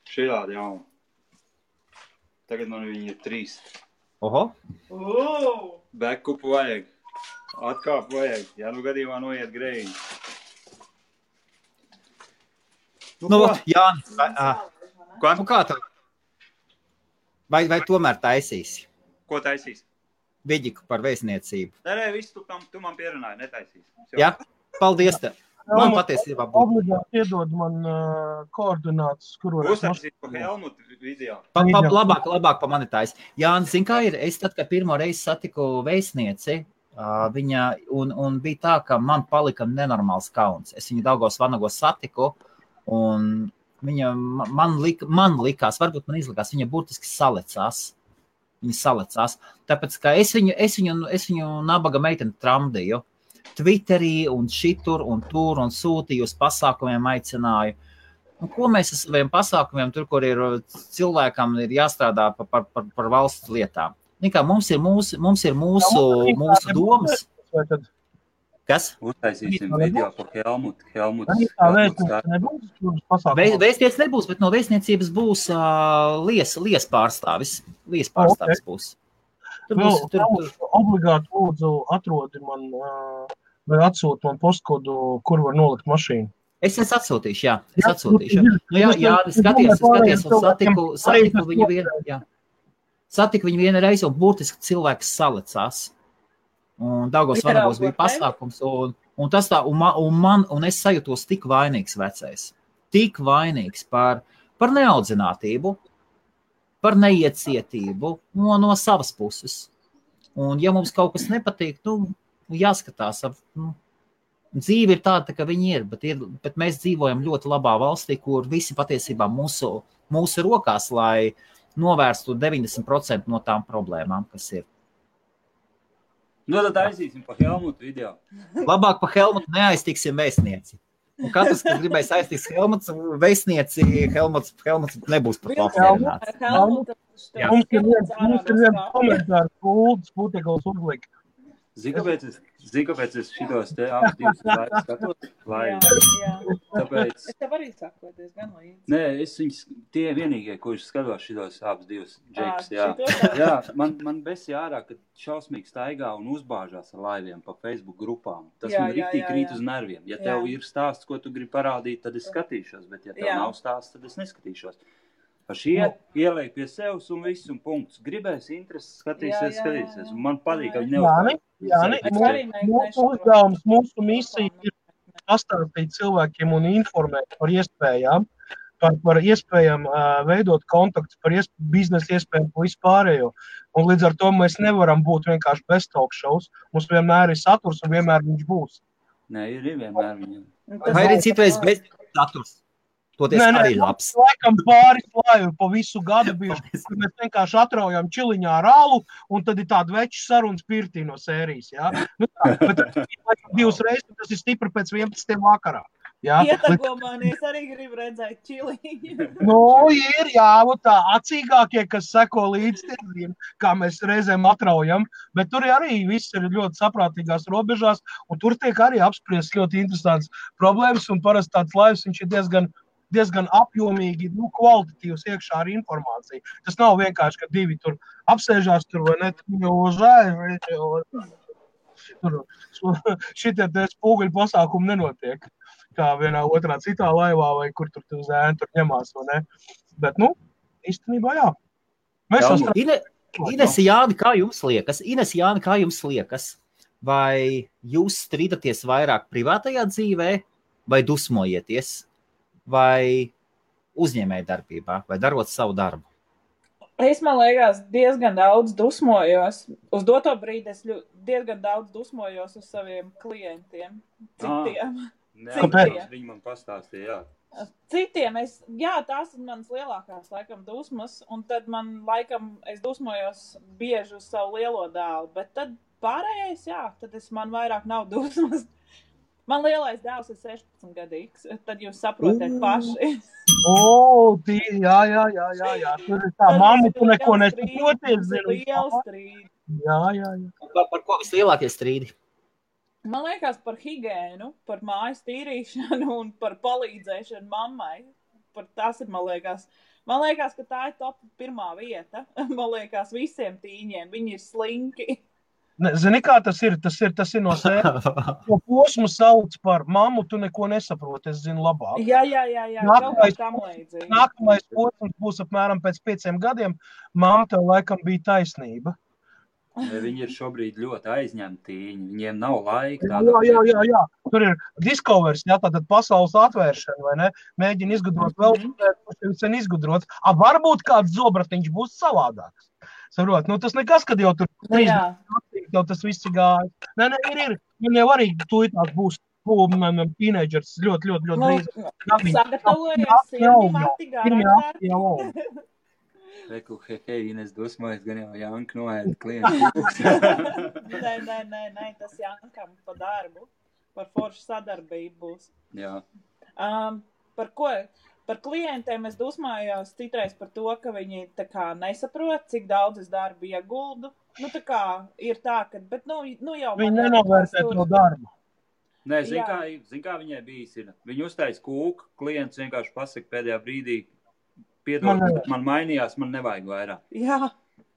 šitādi jaunu. Tagad man viņi ir 3. Oho. Backupu vajag. Atkāpu vajag. Ja gadījumā noiet greiņi. Jāni. Kā tev? Vai tomēr taisīsi? Ko taisīs? Viģiku par vēstniecību. Nē, viss tu man pierunāji, netaisīs. Jā, paldies tev. Man patiesībā būtu. Obligāti iedod man koordinātus, kuros... Uztaisīt pa Helmutu video. Labāk pa mani tais. Jāni, zin kā ir, es tad, kad pirmo reizi satiku vēstnieci, viņa, un bija tā, ka man palika nenormāls kauns. Es viņu Daugavas Vanagos satiku, un viņa man likās, varbūt man izlikās, viņa burtiski salecās. Viņi salecās. Tāpēc, ka es viņu nabaga meiteni tramdīju. Twitterī un šitur un tur un sūtīju uz pasākumiem aicināju. Un ko mēs ar saviem pasākumiem, tur, kur ir cilvēkam ir jāstrādā par valsts lietām? Nikā, mums ir mūsu domas. Kas? Uztaisīsim video par Helmutu. Vēstniec nebūs, bet no vēstniecības būs lies pārstāvis. Lies pārstāvis būs. Tur. Obligāti lūdzu atrodi man vai atsūti man postkodu, kur var nolikt mašīnu. Es atsūtīšu, jā. Skaties, un satiku viņu vienu, jā. Satiku viņu vienu reizi, un burtiski cilvēks salecās. Un Daugavas Vanagos bija pasākums, un tas tā, un es sajūtos tik vainīgs vecais. Tik vainīgs par neaudzinātību, par neiecietību no savas puses. Un ja mums kaut kas nepatīk, jāskatās. Dzīve ir tāda, ka viņi ir, bet mēs dzīvojam ļoti labā valstī, kur visi patiesībā mūsu rokās, lai novērstu 90% no tām problēmām, kas ir. Tad aizīsim pa Helmutu video. Labāk pa Helmutu neaiztiksim vēstnieci. Un katrs, kas gribēs aiztiks Helmuts, vēstnieci, Helmuts nebūs par to apmierināts. Mums ir viens komentārs, Putekals uzlika. Zini, kāpēc es šitos te abas divas laikas skatos? Tāpēc... Es tev arī saku, diezgan līdzi. Nē, tie vienīgie, kurš skatos šitos abas divas džekus, jā. Man besi ārā, kad šausmīgi staigā un uzbāžās ar laiviem pa Facebook grupām. Tas man riktīgi krīt uz nerviem. Ja tev ir stāsts, ko tu gribi parādīt, tad es skatīšos, bet ja tev nav stāsts, tad es neskatīšos. Ieliek pie sevis un viss un punkts. Gribēs intereses, skatīsies. Un man patīk, ka viņi neuzbāž. Mūsu uzdevums, mūsu misija ir pastāstīt cilvēkiem un informēt par iespējām, par iespējām veidot kontaktus, par biznesa iespējām pa vispārējo. Un līdz ar to mēs nevaram būt vienkārši bez talk shows. Mums vienmēr ir saturs un vienmēr viņš būs. Nē, ir vienmēr viņam. Vai ir citreiz bez saturs? Arī labs. Laikam pāris laivi pa visu gadu bijuši, kur mēs vienkārši atraujam čiliņā ar alu, un tad ir tāda veču sarunas pirtī no sērijas, jā. Bet divas reizes tas ir stipri pēc 11. vakarā. Ietago mani, es arī gribu redzēt čiliņu. Ir, jā, tā acīgākie, kas seko līdz tieziem, kā mēs reizēm atraujam, bet tur arī viss ir ļoti saprātīgās robežās, un tur tiek arī apspriest ļoti interesants problēmas, un parasti tāds laivs, viņš ir diezgan apjomīgi, kvalitatīvs iekšā ar informāciju. Tas nav vienkārši, ka divi tur apsēžās tur, vai ne, šitie spūguļu pasākumi nenotiek, kā vienā otrā citā laivā, vai kur tur zēni tur ņemās, vai ne. Bet, īstenībā jā. Ines Jāni, kā jums liekas? Vai jūs strīdaties vairāk privātajā dzīvē, vai dusmojieties? Vai uzņēmēja darbībā, vai darot savu darbu? Es, man liekas, diezgan daudz dusmojos. Uz doto brīdi es diezgan daudz dusmojos uz saviem klientiem. Citiem. Viņi man pastāstīja, jā. Citiem, tās ir manas lielākās, laikam, dusmas, un tad es dusmojos bieži uz savu lielo dēlu, bet tad pārējais, tad man vairāk nav dusmas. Man lielais dēls ir 16 gadīgs, tad jūs saprotat paši. Jā. Tur ir tā mamma, tu neko nesaproties. Liela strīdi. Jā. Par ko vislielākie strīdi? Man liekas par higēnu, par mājas tīrīšanu un par palīdzēšanu mammai. Tas ir, man liekas, ka tā ir top 1. vieta. Man liekas, visiem tīņiem. Viņi ir slinki. Zini, kā tas ir? Tas ir no sēnes. To posmu sauc par mammu, tu neko nesaproti, es zinu labāk. Jā. Nākamais posms būs apmēram pēc 5 gadiem. Mamma, tev laikam bija taisnība. Viņi ir šobrīd ļoti aizņemti, viņiem nav laika. Jā. Tur ir discoveries, tātad pasaules atvēršana, vai ne? Mēģina izgudrot vēl, kurš sen izgudrots. Varbūt kāds zobratiņš būs savādāks. Saprot, tas nekas, kad jau tur 3 jau tas viss ir gājis. Nē, ir. Viņam jau arī tūlītās būs teenagers ļoti drīz. Sagatavojies, Reku, hei, Ines dusmojas, gan jau Janka noēda klientu. Nē, tas Jankam pa darbu, par foršu sadarbību būs. Jā. Par klientiem es dusmājos citreiz par to, ka viņi tā kā nesaprot, cik daudz es darbu ieguldu. Nu, tā kā ir tā, ka, bet nu jau... Viņi nenovērtē to darbu. Nē, zin kā viņai bijis ir. Viņi uztais kūku, klients vienkārši pasaka pēdējā brīdī, piedod, man mainījās, man nevajag vairāk. Jā.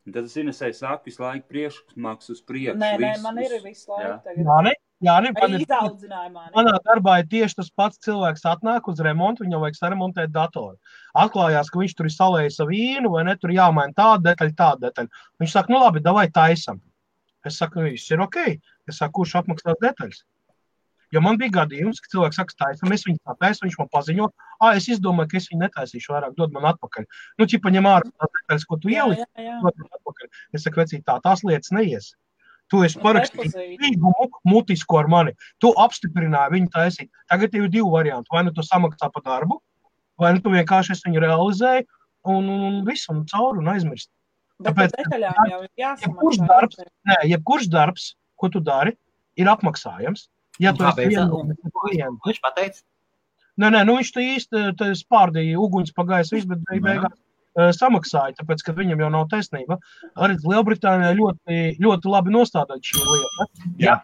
Un tad es Inesai saku visu laiku priekšmaks uz priekšu. Nē, man ir visu laiku tagad. Manā darbā ir tieši tas pats cilvēks atnāk uz remontu, viņam vajag saremontēt datoru. Atklājās, ka viņš tur ir salējis savu vīnu, vai ne, tur jāmaina tāda detaļa. Viņš saka, nu labi, davai taisam. Es saku, viss ir ok. Es saku, kurš apmaksās detaļas? Jo man bija gadījums, ka cilvēks saka, taisam, es viņu tātaisu, viņš man paziņo, es izdomāju, ka es viņu netaisīšu vairāk, dod man atpakaļ. Nu, ķipa ņem ārā tās detaļas, ko tu ieliksi, dod man atpakaļ. Es saku, vecīt, tās lietas neies. Tu esi parakstījis līgumu mutisku ar mani. Tu apstiprināji viņu taisīt. Tagad ir divi varianti. Vai nu tu samaksā pa darbu, vai nu tu vienkārši es viņu realizēju un visu un cauri un aizmirst. Bet par detaļām jau ir jāsamaksā. Jebkurš darbs, ko tu dari, ir apmaksājams. Ja tu esi klientu. Viņš pateica? Nē, viņš te īsti spārdīja uguņas pagājis viss, bet beigās samaksāja, tāpēc, ka viņam jau nav taisnība. Arī Lielbritānijā ļoti, ļoti labi nostādāt šī lieta. Jā.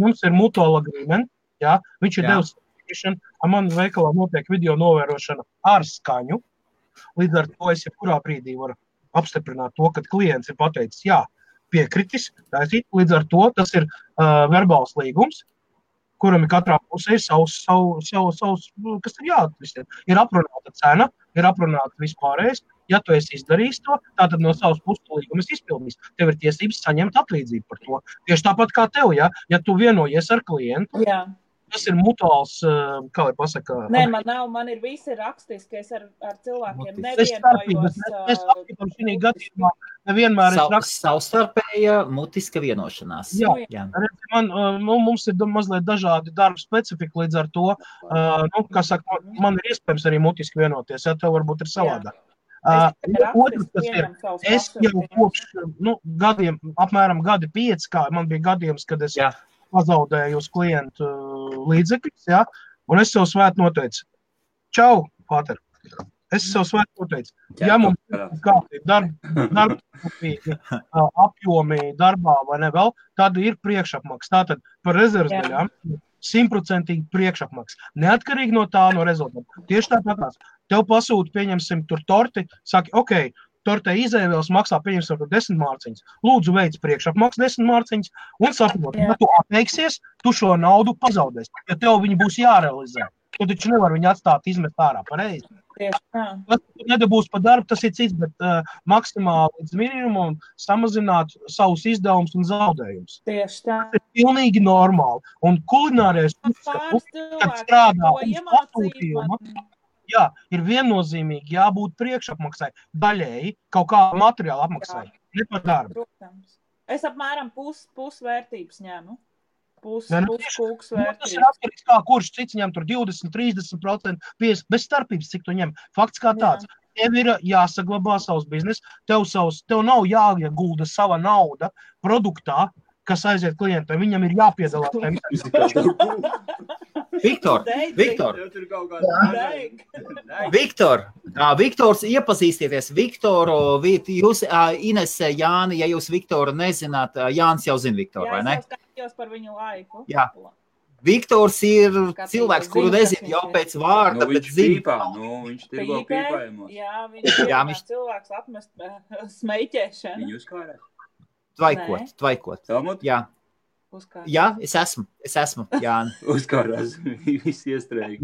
Mums ir mutual agreement, jā. Viņš ir devis certification, man veikalā notiek video novērošana ar skaņu. Līdz ar to es jebkurā brīdī varu apstiprināt to, kad klients ir pateicis, jā, piekritis, taisīt. Līdz ar to tas ir verbāls līgums, kuram ir katrā pusē savs, kas ir jāatvisiem. Ir aprunāta cena, ir aprunāta vispārējais. Ja tu esi izdarījis to, tātad no savas puses līgumas izpildījis. Tev ir tiesības saņemt atlīdzību par to. Tieši tāpat kā tev, ja tu vienojies ar klientu, tas ir mutuāls, kā var pasakāt. Nē, man ir visi rakstiski, es ar cilvēkiem nevienojos. Es apskatam šī gadījumā nevienmēr es rakstu. Savstarpēja mutiska vienošanās. Jā. Mums ir mazliet dažādi darba specifika, līdz ar to, kā saka, man ir iespējams arī mutiski vienoties, ja tev varbūt ir savādāk. Otrs, kas ir, es jau kopš gadiem, apmēram gadi 5, kā man bija gadījums, kad es pazaudēju uz klientu līdzekļus, un es sev svēt noteicu. Čau, Pāter! Es sev svēt noteicu. Ja mums ir kādi darba apjomi darbā vai ne vēl, tad ir priekšapmaks. Tātad par rezerves daļām 100% priekšapmaks. Neatkarīgi no tā, no rezultāta. Tieši tāpatās. Tev pasūta, pieņemsim, tur torti, saki, ok, tortē izēvēls maksā, pieņemsim, 10 mārciņas. Lūdzu, veic priekšapmaks 10 mārciņas un saprot, ja tu atteiksies, tu šo naudu pazaudēsi. Ja tev viņi būs jārealizē, tu taču nevar viņu atstāt izmest ārā pareizi. Tas nedabūs pa darbu, tas ir cits, bet maksimāli līdz minimumam samazināt savus izdevumus un zaudējumus. Tieši tā. Tas ir pilnīgi normāli. Un kulinārais uzskatu, kad strādā uz pasūtījumu, ir viennozīmīgi jābūt priekšapmaksai, daļēji kaut kā materiāla apmaksai, ne par darbu. Protams. Es apmēram pusvērtības ņemu. Kūks vērtības. Tas ir atkarīgs kā kurš cits ņem tur 20, 30%, 50%, bez starpības, cik tu ņem. Fakts kā tāds. Tev ir jāsaglabā savs biznes, tev nav jāiegulda sava nauda produktā, kas aiziet klientam, viņam ir jāpiedalās. Viktors, iepazīstieties. Viktoru, jūs, Inese, Jāni, ja jūs Viktoru nezināt, Jānis jau zina Viktoru, vai ne? Jā, es jau skatījos par viņu laiku. Jā. Viktors ir cilvēks, kuru nezinu jau pēc vārda, bet zina. Viņš tirgo pīpājumos. Jā, viņš cilvēks atmest smeiķēšanu. Viņu uzkārēt. Tvaikot. Jā. Uzkārt. Jā, es esmu, Jāni. Uzkārās, viss iestrēgi.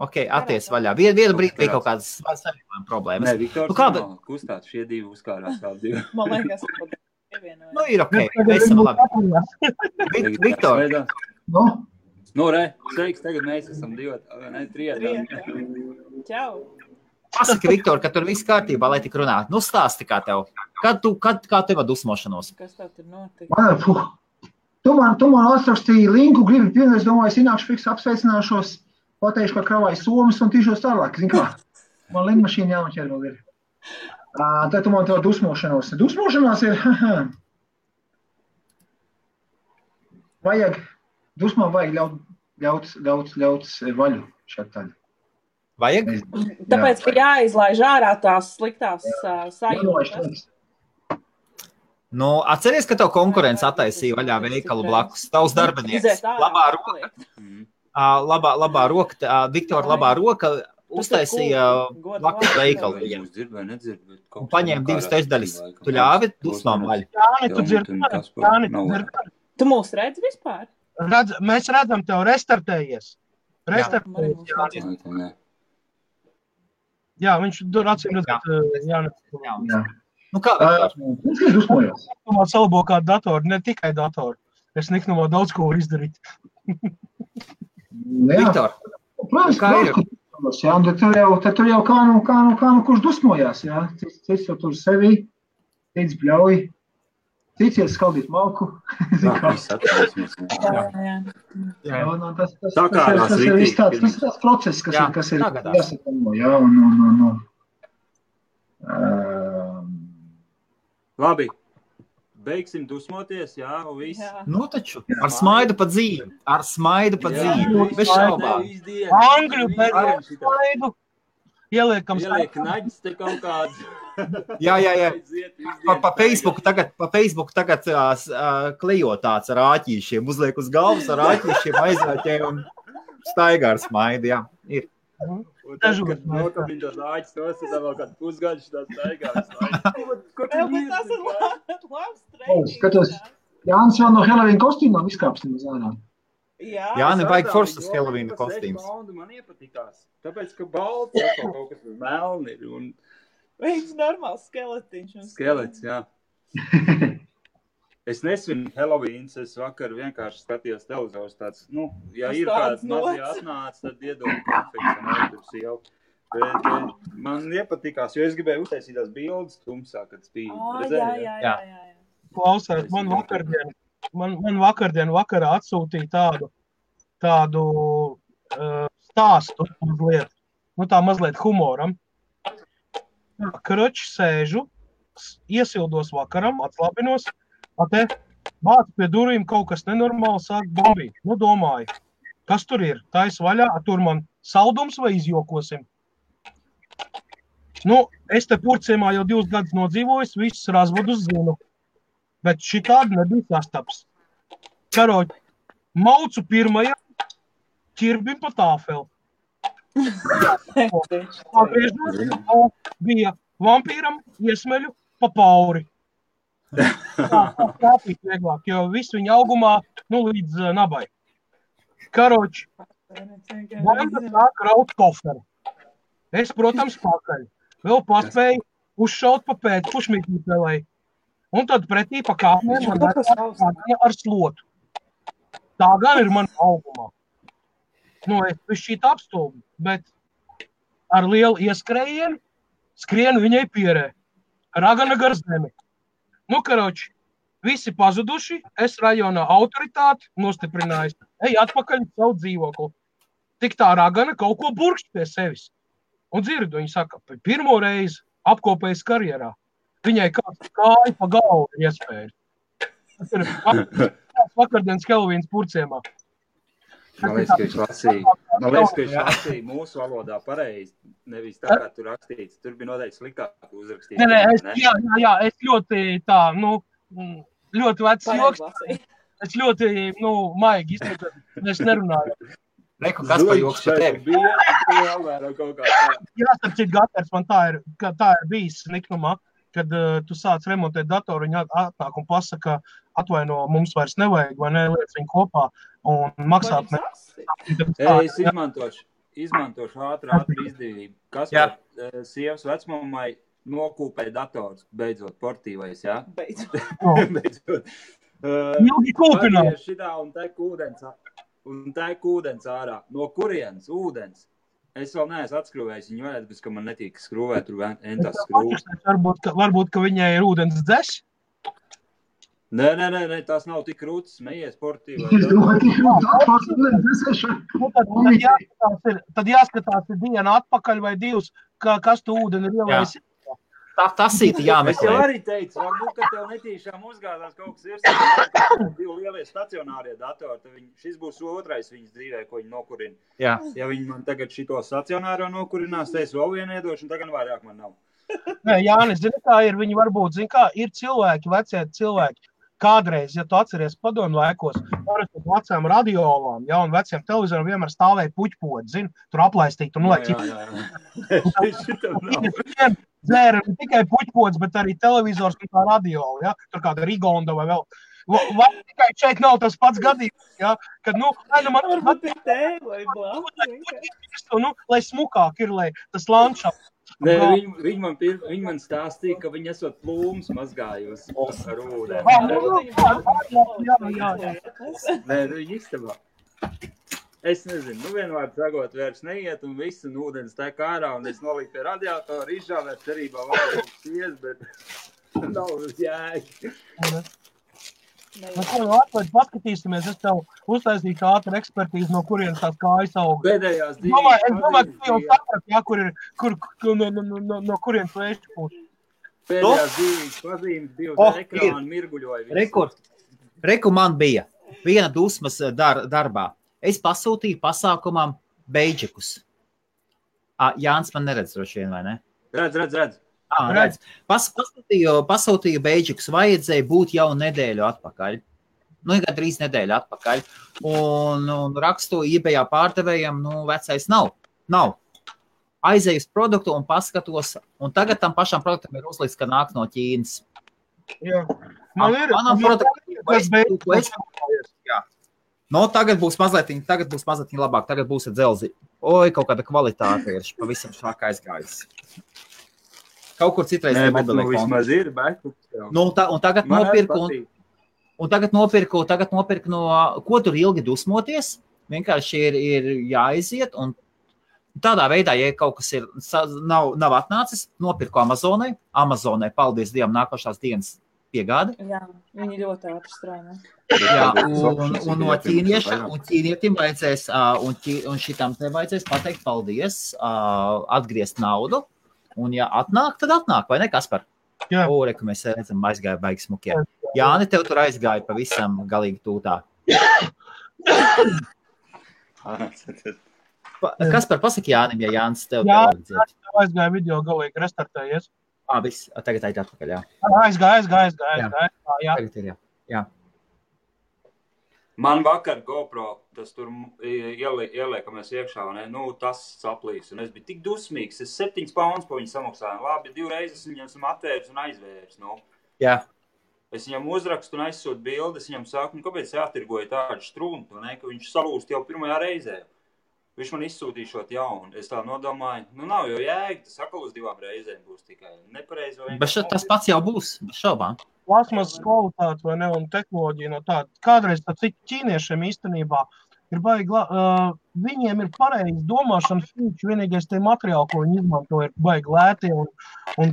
Ok, atties vaļā. Vienu brīdi bija kaut kādas savienojuma problēmas. Nē, Viktors nav kustāt, šie divi uzkārās vēl divi. Man liekas, ka ir ok, esam labi. Viktor. Sveiks, tagad mēs esam trietā. Čau. Pasaki, Viktor, ka tur viss kārtībā, lai tik runātu. Nu, stāsti kā tev. Kā tev dusmošanos? Kas tev tur notika? Tu man atrakstīji linku, gribi pienu, es domāju, es ienākšu fiks apsveicināšos. pateikšu, ka kravāju somas un tīšos tālāk. Zin kā? Man lidmašīna jānoķer vēl ir. Tad tu man to dusmošanos. Dusmošanās ir, dusmām vajag ļaut vaļu šeit tādi. Vajag? Tāpēc, ka jāizlaiž ārā tās sliktās sajūtas. Nu, atceries, ka tev konkurence attaisīja vaļā veikalu blakus. Tavs darbinieks. Labā roka, Viktora labā roka uztaisīja blakus veikalu. Un paņēma 2 trešdaļas. Tu ļāvi dusmām vaļu? Jāni, tu dzird. Tu mūs redz vispār? Mēs redzam tev restartējies. Jā, viņš tur acīm redzēt. Jā. Nu kā, Viņš ir dusmojos. Niknumā salabo kādu datoru, ne tikai datoru. Es niknumā daudz ko var izdarīt. Viktor, kā ir? Jā, un tad tur jau kā nu kurš dusmojās, jā. Cits jau tur sevi, cits bļauj, cits iet skaldīt malku. Tas ir viss tāds process, kas ir jāsakamo, jā, un Labi, beigsim dusmoties, jā, un viss. Nu taču, ar smaidu pa dzīvi. Bez šaubām. Angļu, bez smaidu. Ieliekam Ieliek naģis te kaut kāds. Jā. Pa Facebooku tagad klejo tāds ar āķīšiem. Uzliek uz galvas ar āķīšiem, aizvērķē un staigā ar smaidu, jā. Ir. Un tad, kad nokabina tos āķis, tos tad vēl kādu pusgaļus tā staigā. Tas ir labs treniņš. Skatos, Jānis vēl no Halloween kostīmām izkāpsim uz ārā. Jā, nevajag forstas Halloween kostīms. Man iepatikās, tāpēc, ka balts kaut kas melni ir. Viņš normāls skeletiņš. Skelets, jā. Es nesvinu Halloweens, es vakar vienkārši skatījos televizors tāds, ja ir kāds mazie atnāc, tad iedod konfekts un aizturs jau. Bet man iepatikās, jo es gribēju uztaisīt tās bildes tumsā, kad spīd. Jā. Klausās, man vakardien vakarā atsūtīja tādu stāstu mazliet, tā mazliet humoram. Kroči sēžu, iesildos vakaram, atslabinos, vāc pie durvīm kaut kas nenormāli sāk bombīt. Domāju, kas tur ir? Tais vaļā, tur man saldums vai izjokosim? Es te Purciemā jau 2 gadus nodzīvojis, visus razvadus zinu, bet šitādi nebija sastaps. Karoči, maucu pirmajam ķirbim pa tāfeli. Bija vampīram iesmeļu pa pauri. Tāpīt vieglāk, jo visu viņa augumā, līdz nabai. Karoči, banda sāk raut koferi. Es, protams, pakaļ. Vēl paspēju uzšaut pa pēc pušmītnīpelai. Un tad pretī pa kāpnēm man ar slotu. Tā gan ir man augumā. Es višķīt apstulbu, bet ar lielu ieskrējienu skrienu viņai pierē. Ragana gar zemi. Karoči, visi pazuduši, es rajonā autoritāti nostiprinājusi. Ej atpakaļ savu dzīvokli. Tik tā ragana kaut ko burkšķ pie sevis. Un dzirdu, viņa saka, pirmo reizi apkopējas karjerā. Viņai kāds kāja pa galvu iespējas. Tas ir vakardienas Halloweens Purciemā. Man liekas, ka viņš lasīja mūsu valodā pareizi, nevis tā, kā tur rakstīts. Tur bija noteikti sliktāk uzrakstīts. Jā, es ļoti ļoti vecs joks. Es ļoti, maigi izpētēju. Es nerunāju. Reku, kas par joks par tevi? Jā, starp citu, Gaters, man tā ir bijis niknumā, kad tu sāc remontēt datoru, viņa atnāk un pasaka, atvaino, mums vairs nevajag, vai ne, liec viņu kopā un maksāt. Es izmantošu ātri izdevību. Kas par sievas vecmamai nokūpēja dators, beidzot, portīvais, jā? Beidzot. Ilgi kūpināt. Šitā un tek ūdens ārā. No kurienes ūdens? Es vēl neesmu atskrūvējis viņu vajag, bet ka man netīk skrūvēt, tur entās skrūvēt. Varbūt, ka viņai ir ūdens dzes? Nē, tās nav tik krūtas, smējies sportīvā. Es domāju, tik krūtas. Tad jāskatās dienu atpakaļ vai divas, kas tu ūdeni ir ielējis. Tas ir jāmeklē. Es jau arī teicu, varbūt, ka tev netīšām uzgādās kaut kas ir divi lielie stacionārie datori, tad šis būs otrais viņas dzīvē, ko viņi nokurina. Jā. Ja viņi man tagad šito stacionāro nokurinās, tad es vēl vienu iedošu, un tagad vairāk man nav. Nē, Jānis, zini, kā ir, viņi varbūt, zini, kā ir cilvēki, vecie cilvēki. Kādreiz, ja tu atceries padomu laikos, parasti vecām radiolām, ja, un veciem televizoriem vienmēr stāvēja puķpodi, zini, tur aplaistīt un nolaikt. Dzēra ne tikai puķpods, bet arī televizors un tā radiola, ja, tur kāda Rigonda vai vēl. Vai tikai šeit nav tas pats gadījums, ja, kad, varbūt ir tēva, lai smukāk ir, lai tas landšafts. Nē, viņi man stāstīja, ka viņi esot plūmus mazgājusi ar ūdeni. Nē, viņi istabā. Es nezinu, vienvārds sagot vairs neiet un viss, un ūdens tek ārā, un es noliku pie radiatora, izžāvēt cerībā vēl šies, bet nav jēgi. Paskatīsimies, es tev uztaisīju ātru ekspertīzi, no kurienes tās kājas aug. Pēdējās Es domāju, ka jau saprat, ja, no kurienes vēšķi būs. Pēdējās dzīvības pazīmes divas ekrāni mirguļoja. Reku man bija viena dusmas darbā. Es pasūtīju pasākumam beidžikus. Jānis man neredz droši vien, vai ne? Redz. Redz. Pasūtīju beidžikus, vajadzēja būt jau nedēļu atpakaļ. Gandrīz nedēļu atpakaļ. Un rakstu eBayā pārdevējam, vecais nav. Aizēju uz produktu un paskatos, un tagad tam pašam produktam ir uzlikts, ka nāk no Ķīnas. Jā. Manam produktam, tagad būs mazliet labāk, tagad būs ar dzelzi. Kaut kāda kvalitāte ir pavisam šāk aizgājusi. Kaut kur citreiz ir mobilē konti. Vismaz ir, bet... Tagad nopirku no... Ko tur ilgi dusmoties? Vienkārši ir jāiziet, un tādā veidā, ja kaut kas ir, nav atnācis, nopirku Amazonai. Amazonai, paldies Dievam, nākošās dienas piegādi. Jā, viņi ļoti ātri strādā. Jā, un no ķīnietim vajadzēs, un šitam te vajadzēs pateikt paldies, atgriezt naudu. Un ja atnāk, tad atnāk, vai ne, Kaspar? Jā. Ka mēs redzam, aizgāja baigi smukie. Jāni, tev tur aizgāja pavisam galīgi tūtā. Kaspar, pasaki Jānim, ja Jānis tev tev aizgāja video galīgi restartējies. Viss, tagad aiz atpakaļ, jā. Aizgāja. Tagad ir, jā. Man vakar GoPro, tas tur ieliekamies iekšā, tas saplīs, un es biju tik dusmīgs, es 7 pounds pa viņu samaksāju, labi, 2 reizes viņam esam atvērs un aizvērs, Jā. Es viņam uzrakstu un aizsūtu bildi, es viņam saku, kāpēc jātirgoja tādu struntu, ka viņš salūst jau pirmajā reizē. Viņš man izsūtīšot jaunu, es tā nodomāju, nav jau jēga, tas atkal uz 2 reizēm būs tikai nepareizi. Bet tas pats jau būs, bez šaubām. Plasmas kvalitāte vai ne, un tehnoloģija no tāda. Kādreiz tā cik ķīniešiem īstenībā ir baigi, viņiem ir pareizi domāšanas fīči, vienīgais tie materiāli, ko viņi izmanto, ir baigi lēti, un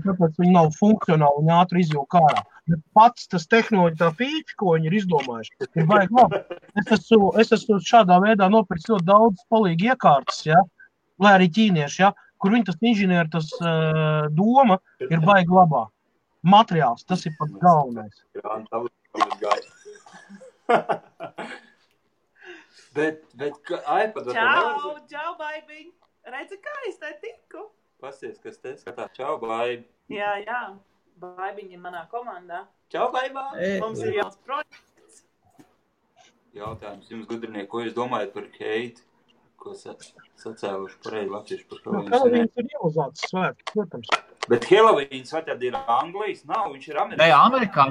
tāpēc viņi nav funkcionāli un ātri izjūk ārā. Bet pats tas tehnoloģija tā fīči, ko viņi ir izdomājuši, ir baigi labi. Es esmu šādā veidā nopirkt ļoti daudz palīgi iekārtas, ja, lai arī ķīnieši, ja, kur viņi tas inženieri, tas doma ir baigi labā. Materiāls, tas ir pats galvenais. Bet iPad... Čau, baibiņ! Redzi, kā es te tiku? Pasties, kas te skatā. Čau, baibi! Jā. Baibiņ ir manā komandā. Čau, baibā! Mums ir jauns projekts. Jautājums jums, gudrinieki, ko jūs domājat par Keiti? Ko sacēluši pareizi latvieši par Helovīnu? Helovīns ir ieluzāts svētki, protams. Bet Helovīns vai tad ir Anglijas? Nav, viņš ir Amerikāņi. Nē,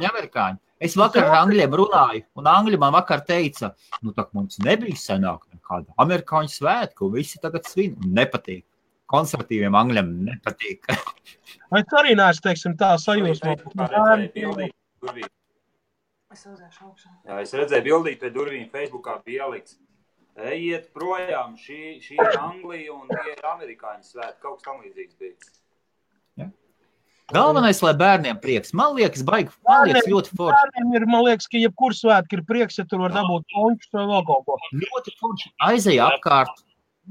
amerikāņi. Es vakar ar angļiem runāju, un angļi man vakar teica, tak mums nebija senāk nekāda amerikāņu svētku, un visi tagad svin, un nepatīk. Konservatīviem angļiem nepatīk. Es arī neesmu, teiksim, tā sajūsmā. Es redzēju bildīt pie durvīm Facebookā bija ielikts. Ejiet projām, šī ir Anglija un tie ir amerikāņu svētki, kaut kas tam līdzīgs bija. Galvenais, lai bērniem prieks. Man liekas, ļoti forši. Bērniem ir, man liekas, ka jebkur svētki ir prieks, ja tur var dabūt pončus vai vēl kaut ko. Ļoti forši. Aizej apkārt,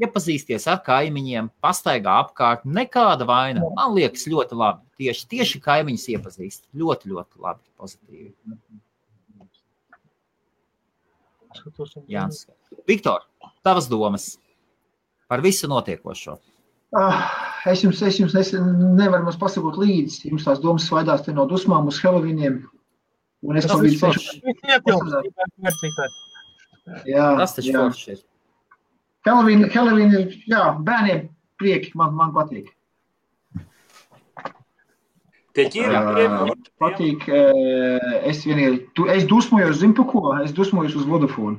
iepazīsties ar kaimiņiem, pastaigā apkārt. Nekāda vaina. Man liekas, ļoti labi. Tieši kaimiņus iepazīst. Ļoti, ļoti labi. Pozitīvi. Jānis. Viktor, tavas domas par visu notiekošo. Es jums nevaru mums pasakot līdzi. Jums tās domas svaidās te no dusmām uz Halloweeniem. Un es Tas taču forši ir. Halloween ir, bērniem prieki, man patīk. Patīk, es dusmojos, zinu pa ko? Es dusmojos uz Vodafone.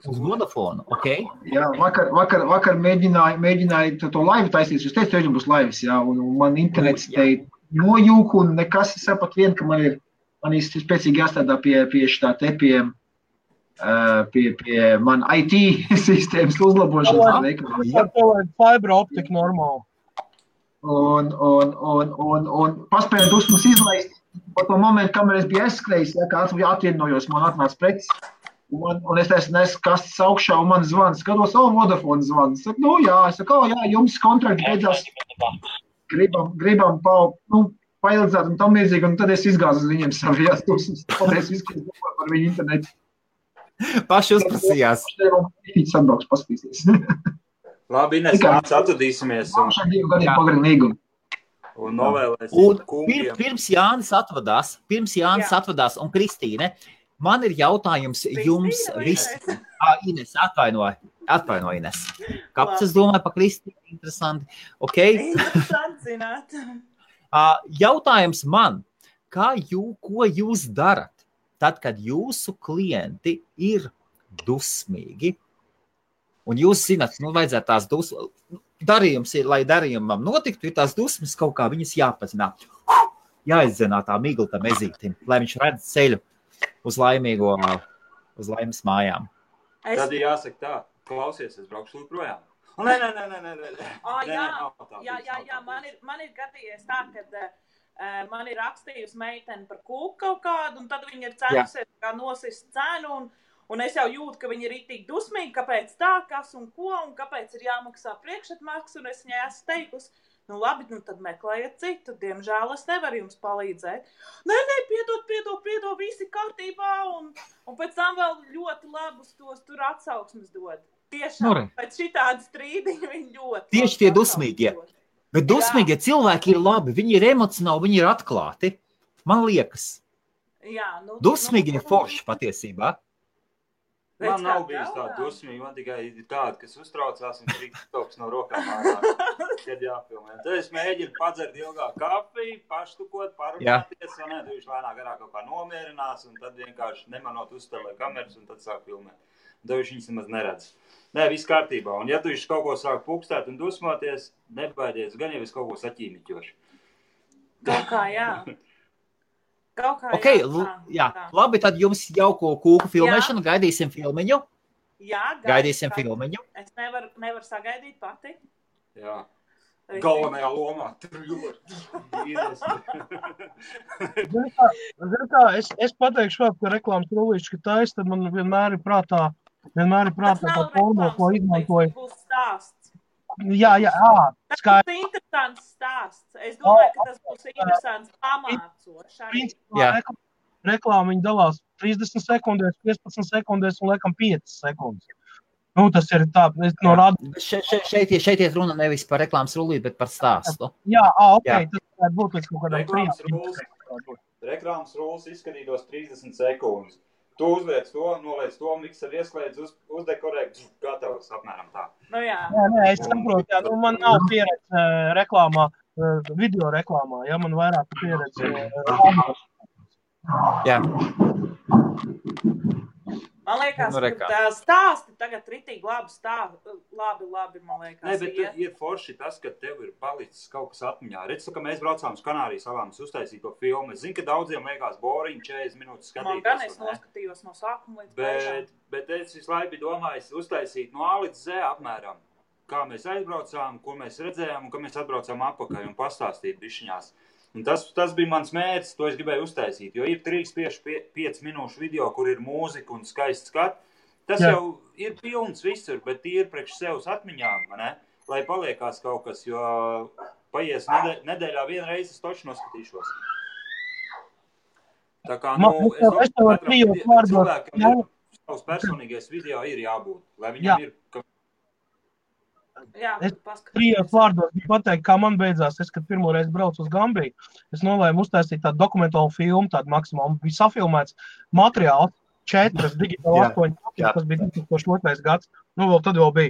Uz Vodafone, ok. Jā, vakar mēģināju to laivu taisīt. Es teicu, ka būs laivas, un man internets te nojūk, un nekas sapat vien, ka man ir spēcīgi jāstrādā pie šitā te, pie man IT sistēmas uzlabošanas. Jā, tev vajag fiber optika normāli. Un paspēju dusmas izlaist, pa to momentu, kamēr es biju aizskrējis, kā atvienojos, man atnāca preces. Un es nesu kastes augšā, un man zvans. Skatos, Vodafone zvans. Saku, jums kontrakti beidzās. Gribam paildzēt un tam līdzīgi, un tad es izgāzu uz viņiem savījās dusmas. Paldies visu, ko par viņu internetu. Paši uzprasījās. Atbrauks, paskatīsies. Labi, Ines, mēs atradīsimies. Un novēlēsim kungiem. Pirms Jānis atvadās, un Kristīne, man ir jautājums jums visiem. Ines, atvaino Ines. Kāpēc es domāju par Kristīnu? Interesanti. Okay. Interesanti zināt. Jautājums man, ko jūs darat, tad, kad jūsu klienti ir dusmīgi, un jūs zināt, vajadzētu tās dusmas, darījums ir, lai darījumam notiktu, ir tās dusmas kaut kā viņas jāpazinā. Jāizdzenā tā miglta mezītim, lai viņš redz ceļu uz laimes mājām. Tad jāsaka tā, klausies, es braukšu projām. Nē. Jā, man ir gadījies tā, kad man ir rakstījusi meiteni par kūku kaut kādu, un tad viņi ir cenusies kā nosist cenu, un es jau jūtu, ka viņi ir itīgi dusmīgi, kāpēc tā, kas un ko, un kāpēc ir jāmaksā priekšatmaksa, un es viņai esmu teikusi, labi, tad meklējiet citu, diemžēl es nevaru jums palīdzēt. Nē, piedod, visi kārtībā, un pēc tam vēl ļoti labus tos tur atsauksmes dod. Tiešām, pēc šitādi strīdiņi viņi ļoti. Tieši tie dusmīgie. Bet dusmīgie cilvēki ir labi, viņi ir emocionāli, viņi ir atklāti. Man liekas. Jā, dusmīgi ir forši patiesībā. Man nav bijis tāda dusmīga, man tikai ir tāda, kas uztraucās un trīk toks no rokām ārā, kad jāfilmē. Tad es mēģinu padzert ilgāk kafiju, paštukot, parunāties, un tu viņš lēnāk garāk kaut kā nomierinās, un tad vienkārši nemanot uzstāvē kameras, un tad sāk filmēt. Un tad viņš viņas nemaz neredz. Nē, viss kārtībā. Un ja tu viņš kaut ko sāk pukstēt un dusmoties, nebaidies, gan jau es kaut ko saķīmiķošu. Kaut kā, jā. Okay, jā. Labi, tad jums jauko kūku filmēšanu, gaidīsim filmiņu. Jā, gaidīsim filmiņu. Es nevaru sagaidīt pati. Jā. Galvenajā lomā. Es pateikšu vēl, ka reklāmas rullīši, ka taisa, tad man vienmēr ir prātā tā forma, ko izmantoju. Tas būs stāsts. Jā, tas būs interesants stāsts. Es domāju, ka tas būs interesants pamācošs. Reklāma viņi dalās 30 sekundēs, 15 sekundēs un laikam 5 sekundes. Tas ir tā, no rāda. Šeit iet runa nevis par reklāmas rullīti, bet par stāstu. Jā, tas varētu būt līdz kaut kādam reklāmas rullis izskatītos 30 sekundes. Tu uzliec to, noliec to, mikser iesklēdz, uzdekorē, gatavs apmēram tā. Jā. Nē, es saprotu, man nav pieredze reklāmā, video reklāmā, man vairāk pieredze. Jā. Man liekas, ka stāsti tagad ritīgi labi, man liekas. Nē, bet ir forši tas, ka tev ir palicis kaut kas atmiņā. Redz, ka mēs braucām uz Kanārijas salām, uztaisīt to filmu. Es zinu, ka daudziem liekas boring 40 minūtes skatīties. Man gan es noskatījos no sākuma līdz beigām. Bet es visu laiku biju domājis uztaisīt no A līdz Z apmēram. kā mēs aizbraucām, ko mēs redzējām un kā mēs atbraucām apakaļ un pastāstīt bišķiņās. Un tas bija mans mērķis, to es gribēju uztaisīt, jo ir 3-5 minūšu video, kur ir mūzika un skaists skats. Tas jau ir pilns visur, bet ir priekš sevs atmiņām, ne? Lai paliekās kaut kas, jo paies nedēļā vienreiz es toči noskatīšos. Tā kā, es cilvēkam ir savs personīgais video ir jābūt, lai viņam ir... Es 3 vārdos biju pateikt, kā man beidzās. Es, kad pirmo reizi braucu uz Gambiju, es nolēmu uztaisīt tādu dokumentālu filmu, tādu maksimālu. Bija safilmēts materiāls, 4 digitāli 8, tas bija 2002. Gads. Nu, tad vēl bija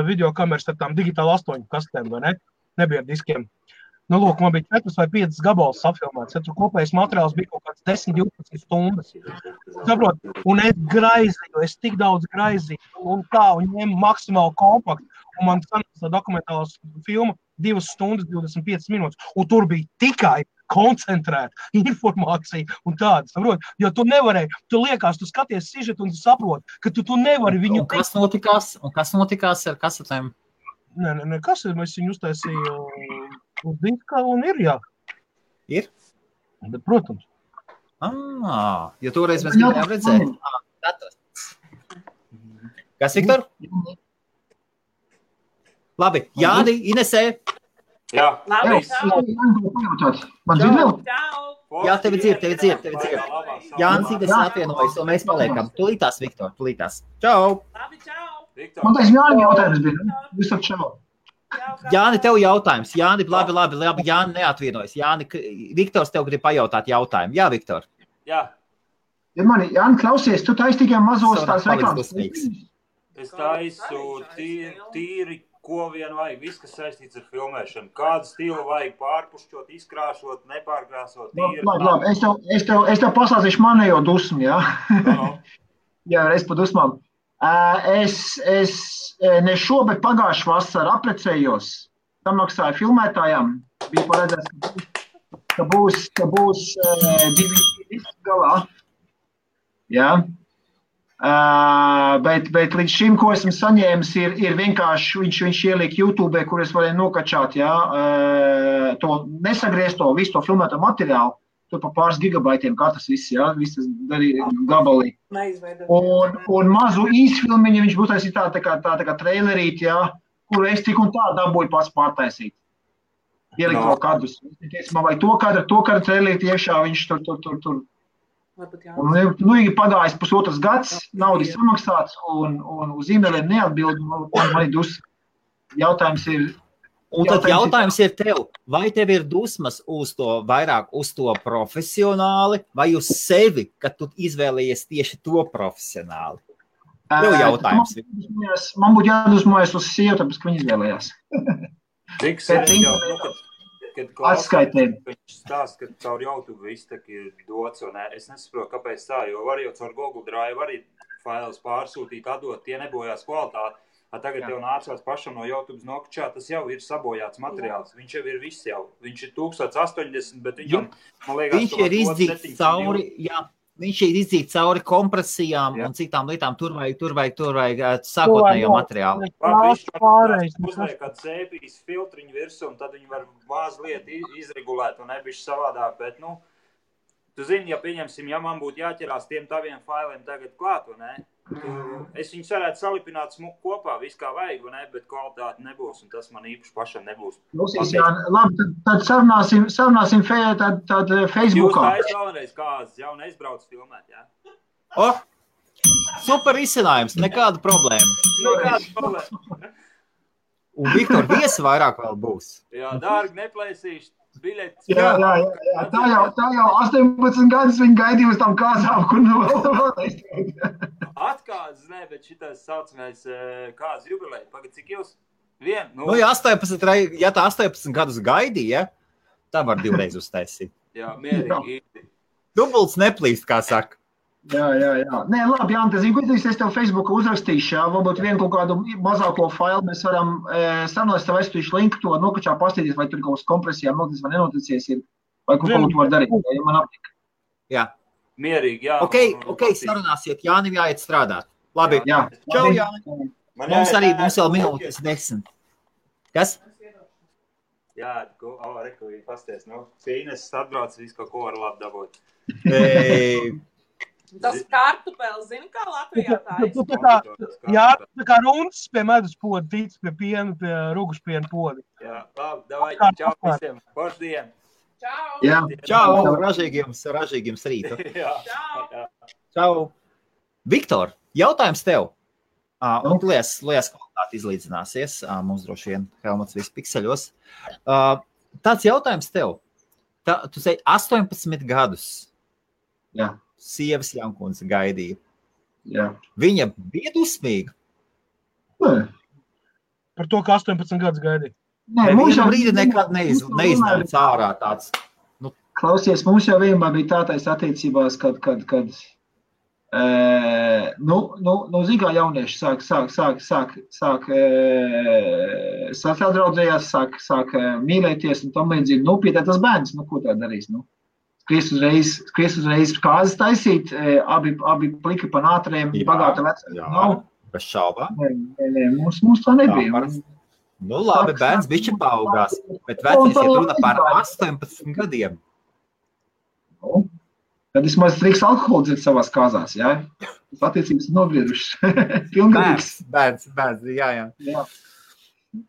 videokameras ar tām digitāli 8 kastēm, vai ne? Nebija ar diskiem. Nu, lūk, man bija 4 vai 5 gabalas safilmēts. Tur kopējais materiāls bija kaut kāds 10-12 stundas. Saprot, un es tik daudz graizīju, un ņēmu maksimāli kompaktu. Un man sanāca dokumentālās filma 2 stundas 25 minūtes. Un tur bija tikai koncentrēta informācija un tāda, saprot? Jo tu nevarēji, tu liekas, tu skaties sižetu un tu saproti, ka tu nevari viņu... Un kas notikās ar kasetēm? Nē, kas ir? Mēs viņu uztaisīju uz diska un ir, jā. Ir? Bet, protams. Jo toreiz mēs gribējām redzēt. Kas, Viktor? Labi, Jāni, Inesē. Jā. Labi, Man dzird vēl? Jā, tevi dzird. Jānis Inesē atvienojas, un mēs paliekam. Tulītās, Viktor, tulītās. Čau! Labi, čau! Man taisa Jāni jautājums bija. Visam čau. Jāni, tev jautājums. Jāni, labi. Jāni neatvienojas. Jāni, Viktors tev grib pajautāt jautājumu. Jā, Viktor. Jā. Jāni, klausies, tu taisi tikai mazos tās reklāmas. Es taisu tīri, ko vien vajag, viss, kas saistīts ar filmēšanu. Kādu stilu vajag pārpušķot, izkrāšot, nepārkrāsot, tīri. Labi, es tev pasāstīšu manējo dusmu, jā? Jā, reiz pa dusmām. Es ne šobet pagājušu vasaru aprecējos, tam maksāju filmētājām, bija paredzēts, ka būs 2 galā, jā. Bet līdz šim, ko esmu saņēmis, ir vienkārši, viņš ieliek YouTube, kur es varēju nokačāt, jā, to nesagriezto, visu to filmēto materiālu, tur pa pāris gigabaitiem katrs viss, jā, viss tas darīja gabalī. Un mazu īsfilmiņu viņš būtu taisīt tā kā trailerīt, jā, kuru es tik un tā dabūju pats pārtaisīt. Ielikt vēl kadrus. Man vajag to kadru trailerīt iekšā, viņš tur. Un ir pagājis pusotras gads, naudas samaksāts un uz e-mailiem neatbild, man ir dus. Jautājums ir... Un tad jautājums ir tev, vai tev ir dusmas vairāk uz to profesionāli vai uz sevi, kad tu izvēlējies tieši to profesionāli? Tev jautājums. Man būtu jādusmojas uz sievu, tāpēc, ka viņi izvēlējās. Kad klausās, viņš stāsta, ka caur YouTube viss tak ir dots, un es nesaprotu, kāpēc tā, jo var jau caur Google Drive arī failus pārsūtīt, atdot, tie nebojās kvalitāti. Tagad jau nācās pašam no YouTube nokačā, tas jau ir sabojāts materiāls. Viņš jau ir viss jau. Viņš ir 1080, bet viņam, man liekas, viņš ir izdzīts cauri, jā. Viņš ir izdzīts cauri kompresijām un citām lietām. Tur vajag sākotnējo materiālu. Uzliek kāds sēpijas filtriņu virsū, un tad viņi var mazliet izregulēt un nebišķi savādāk. Bet, tu zini, ja pieņemsim, ja man būtu jāķerās tiem taviem failiem tagad klāt, vai ne? Es viņus varētu salipināt kopā, viss kā vajag, vai ne? Bet kvalitāte nebūs, un tas man īpaši pašam nebūs. Labi, tad sarunāsim tad Facebookā. Jūs tā vēlreiz kāds jau neizbrauc filmēt, jā? Super izcinājums, nekāda problēma. Un Viktor, viesi vairāk vēl būs. Jā, dārgi neplēsīšu. Biļetes. Jā. Tā jau 18 gadus viņi gaidīja uz tām kāzām, kur vēl. Atkāzes, ne, bet šitais saucamais kāzes jubileja. Pagad, cik jūs? Ja tā 18 gadus gaidīja, tā var 2 reizi uztaisīt. Jā, mierīgi. Dubults neplīst, kā saka. Jā. Nē, labi, Jānis, es tev Facebookā uzrakstīšu, jā, varbūt vienu kaut kādu mazāko failu mēs varam sarunāt, tev aizstīšu linku to nokačā pastīties, vai tur kaut kas kompresijām noticis vai nenoticies ir, vai kaut ko var darīt, ja man aptika. Jā. Mierīgi, jā. Ok, sarunāsiet, Jānim jāiet strādāt. Labi, jā. Čau, Jāni. Mums vēl minūtes 10. Kas? Jā, reku viņi pasties, Fīnes atbrauc, visu kaut ko var labi dabūt. Tas kartupelis, zini, kā Latvijā tā tā kā rundas pie medus poda, tīts pie piena, pie rugušpiena poda. Jā, labi, davai, čau visiem, foršu dienu. Čau! Jā. Čau, ražīgiem rītu. Jā. Čau. Viktor, jautājums tev. Un lies kvalitāti izlīdzināsies. Mums droši vien Helmuts viss pikseļos. Tāds jautājums tev. Tu sei 18 gadus. Jā. Sievas Jankundze gaidīja. Jā. Viņa bija dusmīga. Nē. Par to, ka 18 gadus gaidīja. Nevienam brīdi nekad neiznāca ārā tāds. Klausies, mums jau vienmēr bija tātais attiecībās, kad zīgā jaunieši sāk sadraudzējās, sāk mīlēties un tam līdzīgi. Pietēt tas bērns, ko tā darīs, Skries uzreiz kāzas taisīt, abi pliki pa nātriem, bagāta vecāki. Jā, bez šaubām. Nē, mums tā nebija. Labi, bērns bišķi paaugās, bet vecais iet runa par 18 gadiem. Tad vismaz drīkst alkoholu dzert savās kāzās, jā? Tas attiecības nobriedušas. Bērns, jā.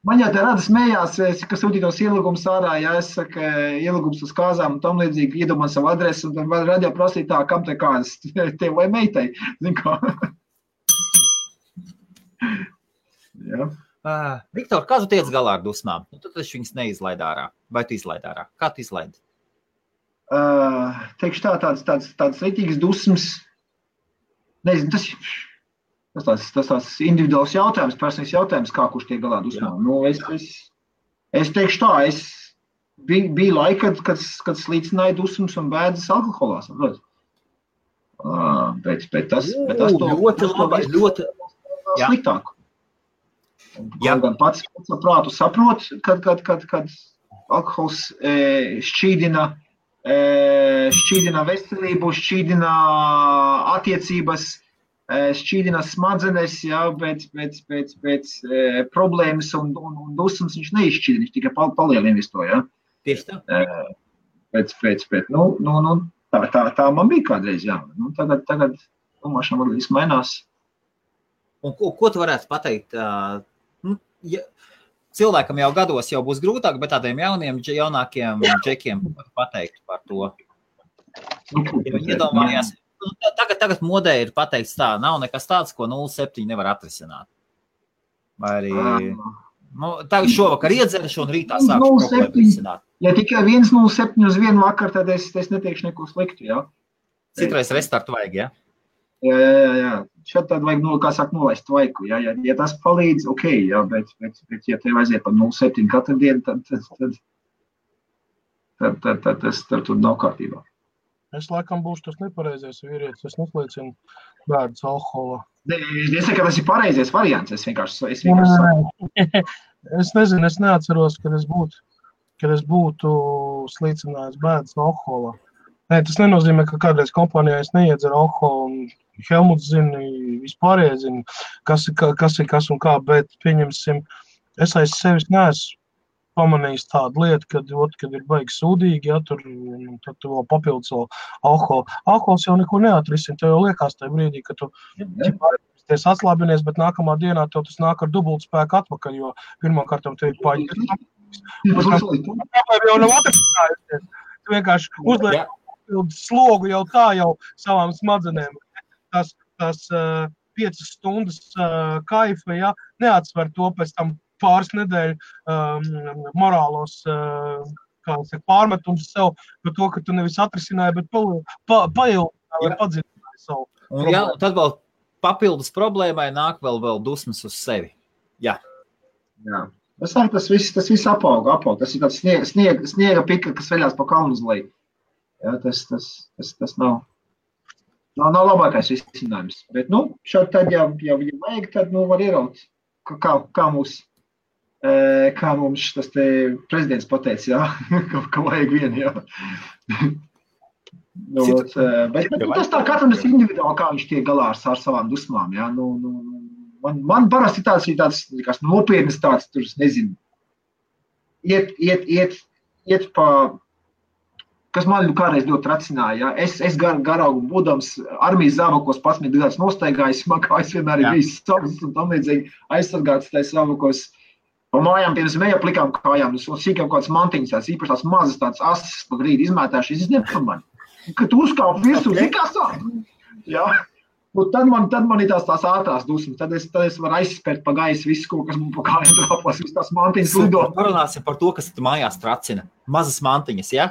Man jau te rada smējās, ka sūtītos ielūgums ārā, ja es saku ielūgums uz kāzām un tam līdzīgi iedomā savu adresi un tad radio prasīt tā, kam te kāzas, tev vai meitai, zin kā. Jā. Viktor, kā tu tiec galā ar dusmām? Tad taču viņas neizlaid ārā. Vai tu izlaid ārā? Kā tu izlaidi? Teikšu tāds rītīgas dusmas, nezinu, tas tāds individuāls jautājums, personīgs jautājums, kā kurš tiek galā dusmām. Es teikšu tā, bija laika, kad slīcināja dusmas un bēdas alkoholā, saprot? Bet tas ļoti sliktāk. Gan pats prātu saprot, kad alkohols šķīdina veselību, šķīdina attiecības, šķīdina smadzenes, jā, bet problēmas un dusmas viņš neizšķīdina, viņš tikai palielina visu to, jā. Tieši tā. Bet tā man bija kādreiz, jā. Tagad domāšana man viss mainās. Un ko tu varētu pateikt? Cilvēkam jau gados jau būs grūtāk, bet tādiem jaunākiem džekiem pateikt par to. Viņi iedomājās, tagad modē ir pateikts tā, nav nekas tāds, ko 0,7 nevar atrisināt. Vai arī, tagad šovakar iedzeršu un rītā sākšu problēmu risināt. Ja tikai 1,07 uz vienu vakar, tad es neteikšu neko sliktu, jā. Citreiz restartu vajag, jā? Jā. Šeit tad vajag, nolaist vaiku, jā. Ja tas palīdz, ok, jā, bet ja tev aiziet par 0,7 katru dienu, tad tas tur nav kārtībā. Es laikam būšu tas nepareizais vīrietis, es neslīcinu bērns alkoholā. Es saku, ka tas ir pareizais variants, es vienkārši Es nezinu, es neatceros, kad es būtu slīcinājis bērns alkoholā. Nē, tas nenozīmē, ka kādreiz kompānijā es neiedzeru alkoholu, un Helmuts zina, vispārējais zina, kas ir kas un kā, bet pieņemsim, es aiz sevis neesmu pamanījis tādu lietu, kad ir baigi sūdīgi, ja, tad tu vēl papildus vēl alkoholu. Alkohols jau neko neatrisina, tev jau liekas tajā brīdī, ka tu atslābinies, bet nākamā dienā tev tas nāk ar dubultu spēku atpakaļ, jo pirmkārt tev ir paģis. Problēma jau nav atrisinājusies. Tu vienkārši uzliek slogu jau tā jau savām smadzenēm. Tas 5 stundas kaifa, ja, neatsver to pēc tam pāris nedēļu morālos pārmetums sev par to, ka tu nevis atrisināji, bet paildināji vai padziļināji savu problēmu. Jā, un tad vēl papildus problēmai nāk vēl dusmas uz sevi. Jā. Tas viss apaug. Tas ir tāds sniega pika, kas veļās pa kalnu uz leju. Jā, tas nav labākais risinājums. Bet, šādi tad, ja vajag, tad, var ieraut, kā mums tas te prezidents pateica, jā, ka vajag vienu, jā. Bet tas tā katram ir individuāli, kā viņš tiek galā ar savām dusmām, jā. Man parasti tāds nopietnas tāds, tur, es nezinu, iet pa, kas man kādreiz ļoti tracināja, ja? Es garaugu būdams armijas zābakos 11 gadus nostaigājis, man kājas vienmēr ir bijis savas un tam līdzīgi aizsargāts tais zābakos. Pa mājām, piemēram, eja plikām kājām, un sīkām kādas mantiņas, tās īpaši tās mazas, tādas asas pa grīdi izmētājuši, es nepamani. Kad tu uzkāp virsū, kā sāk? Jā. Un tad man ir tās ātrās dusmas, tad es varu aizspērt pa gaisu visu, ko, kas man pa kājām drāpās, visas tās mantiņas lido. Parunāsim par to, kas tu mājās tracina. Mazas mantiņas, ja?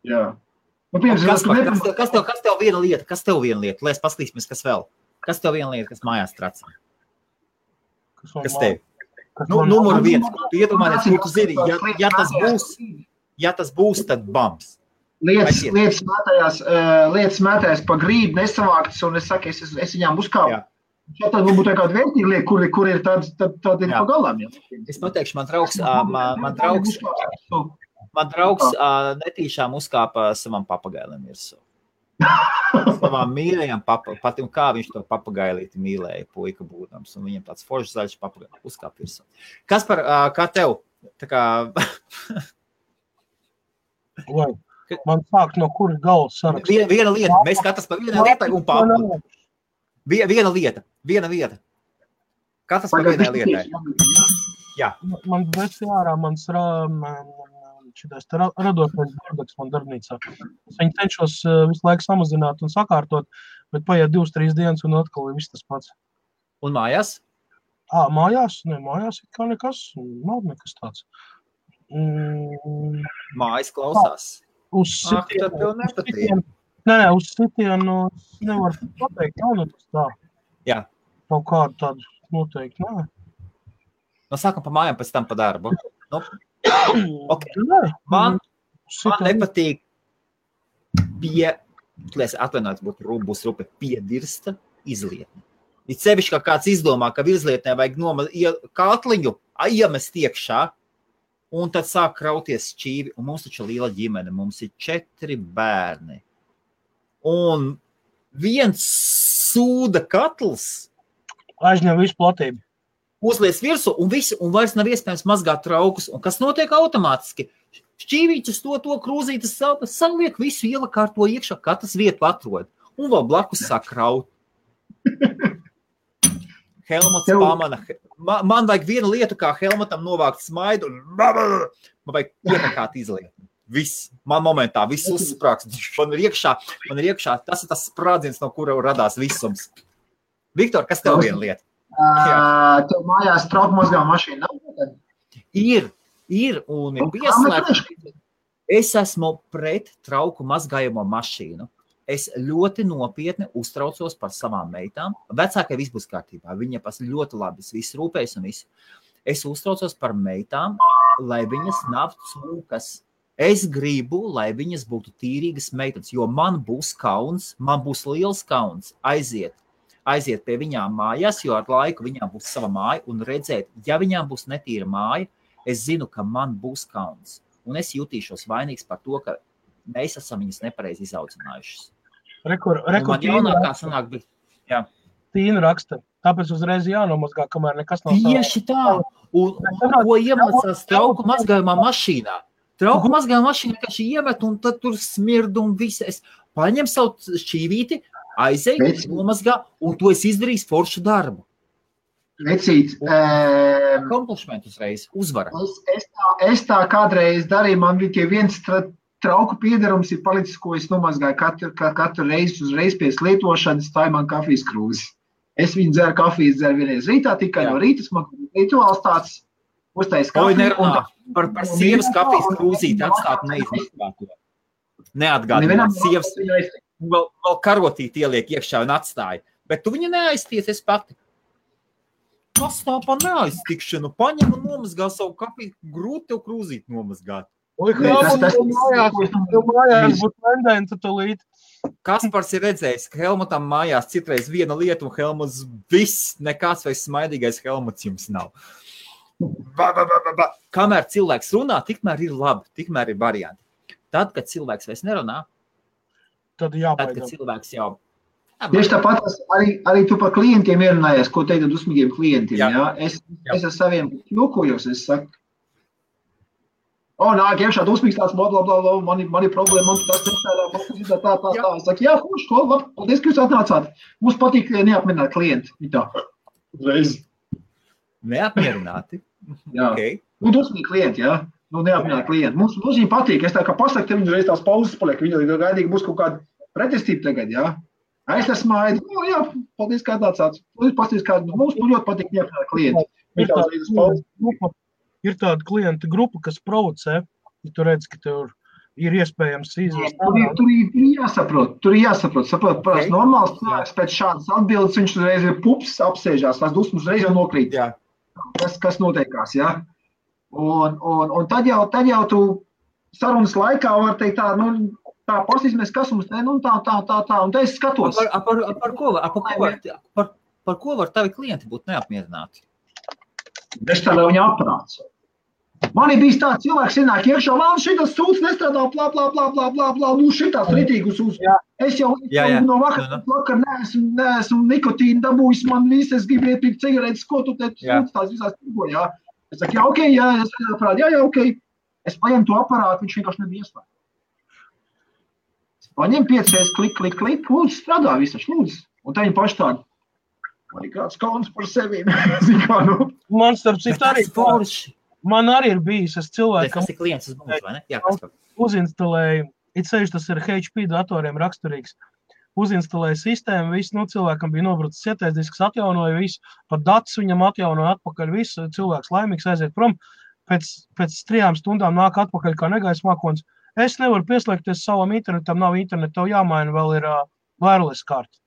Jā. Nu, piemēram, kas tev viena lieta? Lai es paskatīsimies, kas vēl? Kas tev viena lieta, kas mājās tracina? Kas tev? Numur 1. Tu iedomājies, ko tu zini, ja tas būs, tad bams. Lietas mētājās pa grīdu nesavāktas, un es saku, es viņām uzkāpu. Ja tad būtu kāda vērtīga lieta, kur ir tad ir pa galām. Ja. Es pateikšu, man draugs netīšām uzkāpa savam papagailim virsū. Savām mīļajām patim, kā viņš to papagailīti mīlēja, puika būdams, un viņam tāds foršs zaļš papagaili uzkāp virsū. Kaspar, kā tev? Tā kā... Lai, man sāk no kuras galvas sarakstīt. Viena lieta, mēs katrs par vienai lietai un papu. Viena lieta. Katrs par vienai lietai. Jā. Man veci ārā, mans šitais radošais darbaks man darbnīcā. Es viņu cenšos visu laiku samazināt un sakārtot, bet paiet 2-3 dienas un atkal ir viss tas pats. Un mājās? Mājās? Nē, mājās ir kā nekas, nav nekas tāds. Mājas klausās. Uz sitienu. Nē, uz sitienu nevar pateikt, nav nekas tā. Jā. Kaut kādu tādu noteikti, nē. No sākam pa mājām, pēc tam pa darbu. Nu, okay. Man nepatīk būs rupe piedirsta izlietne. Ir sevišķi, kā kāds izdomā, ka virslietnē vajag katliņu iemest iekšā, un tad sāk krauties šķīvi, un mums taču liela ģimene, mums ir 4 bērni. Un viens sūda katls aizņem visu platību. Uzlies virsu un vairs nav iespējams mazgāt traukus. Un kas notiek automātiski? Šķīvīčas to krūzītas saliek visu ielakārto iekšā, katrs vietu atrod. Un vēl blakus sāk kraut. Helmuts pamana. Man vajag viena lieta, kā Helmutam novākt smaidu, un man vajag iekakāt izliet. Viss. Man momentā viss uzsprāks. Man ir iekšā. Tas ir tas sprādziens, no kura radās visums. Viktor, kas tev viena lieta? Tev mājās trauku mazgā mašīna nav? Ir un ir pieslēgts. Es esmu pret trauku mazgājamo mašīnu. Es ļoti nopietni uztraucos par savām meitām. Vecākai viss būs kārtībā. Viņa ļoti labi viss rūpējas un viss. Es uztraucos par meitām, lai viņas nav cūkas. Es gribu, lai viņas būtu tīrīgas meitenes, jo man būs kauns, man būs liels kauns aiziet pie viņām mājās, jo ar laiku viņām būs sava māja un redzēt, ja viņām būs netīra māja, es zinu, ka man būs kauns. Un es jutīšos vainīgs par to, ka mēs esam viņas nepareizi izaudzinājušas. Man jaunākā sanāk bija. Jā. Tīna raksta, tāpēc uzreiz jānomazgā, kamēr nekas nav tieši tā. Un ko iemācās trauku mazgājumā mašīnā? Trauku mazgājumā mašīnā, ka šī iemet un tad tur smird un viss. Es paņem savu šķīvīti, aizēju, nomazgā, un to es izdarīju foršu darbu. Vecīt. Komplimentus reiz, uzvara. Es tā kādreiz darīju, man bija viens trauku piedarums ir palicis, ko es nomazgāju katru reizi uzreiz pēc lietošanas, tā ir man kafijas krūze. Es viņu dzeru vienreiz rītā, tikai no rītas man rituāls tāds uztais kafiju. Par sievas kafijas krūzīti atstāt neizmazgāto. Neatgādināt sievas. Vēl karotīti ieliek iekšā un atstāja. Bet tu viņu neaizties, es pati. Kas tā pa neaiztikšanu? Paņem un nomazgā savu kafiju, grūti tev krūzīt nomazgāt. Oi, Helmutam mājās būtu tendence tulīt. Kaspars ir redzējis, ka Helmutam mājās citreiz viena lieta un Helmuts viss, nekāds vai smaidīgais Helmuts jums nav. Kamēr cilvēks runā, tikmēr ir labi, tikmēr ir varianti. Tad, kad cilvēks vairs nerunā, tad, kad cilvēks jau... Tieši tāpat arī tu par klientiem ierunājies, ko teikt dusmīgiem klientiem. Jā. Es ar saviem jokojos, es saku, Nāk iekšā dusmīgs tāds, blablabla, man ir problēma, man tas nestrādā, tā. Es saku, jā, labi, paldies, ka jūs atnācāt. Mums patīk neapmierināt klienti. Tā. Uzreiz. Neapmierināti? Jā. Okay. Dusmīgi klienti, jā. Neapmierināt klienti. Mums viņiem patīk. Es tā kā pasaku, te viņi uzreiz tās pauzes paliek. Viņi gaidīgi būs kaut kāda pretestība tagad, jā. Es smaidu. Jā, paldies, ka atnācāt. Pasties, kā mums ļoti patīk neapmierināt klienti. Ir tāda klienta grupa, kas provocē, ja tu redz, ka tev ir iespējams izvest. Tur ir jāsaprot. Parasti normāls cilvēks pēc šādas atbildes, viņš uzreiz ir pups, apsēžās, tās dusmas uzreiz jau nokrīt. Jā. Kas noteikās, jā? Un tad jau tu sarunas laikā var teikt tā, tā pasīsimies, kas mums te, tā, un te es skatos. Par ko var tavi klienti būt neapmierināti? Es tā, lai viņi aprāc. Man ir bijis tāds cilvēks, ienāk iekšā, man šitas sūds nestrādā, blā, šitās ritīgus uz. Es jau no vakar neesmu nikotīnu dabūjis, man viss, es gribu iepirkt cigaretes, ko tu te sūds tās visās tirgo, jā. Es saku, ok. Es paņemu to aparātu, viņš vienkārši nebija ieslēgt. Es paņemu 5 klik, lūdzu, strādā visaši, lūdzu. Un tā viņi paši tādi. Man ir kāds kauns par sevi. Man starp citu arī forši. Man arī ir bijis, es cilvēkam... Tas ir klients uz mums, vai ne? Jā, kas par? Uzinstalēju, it sevišķi tas ir HP datoriem raksturīgs. Uzinstalēju sistēmu, visu, cilvēkam bija nobrucis sietais disks, atjaunoja visu, pat datus viņam atjaunoja atpakaļ visu, cilvēks laimīgs aiziet prom. Pēc 3 stundām nāk atpakaļ kā negaisa mākonis. Es nevaru pieslēgties savam internetam, nav interneta, tev jāmaina, vēl ir wireless karta.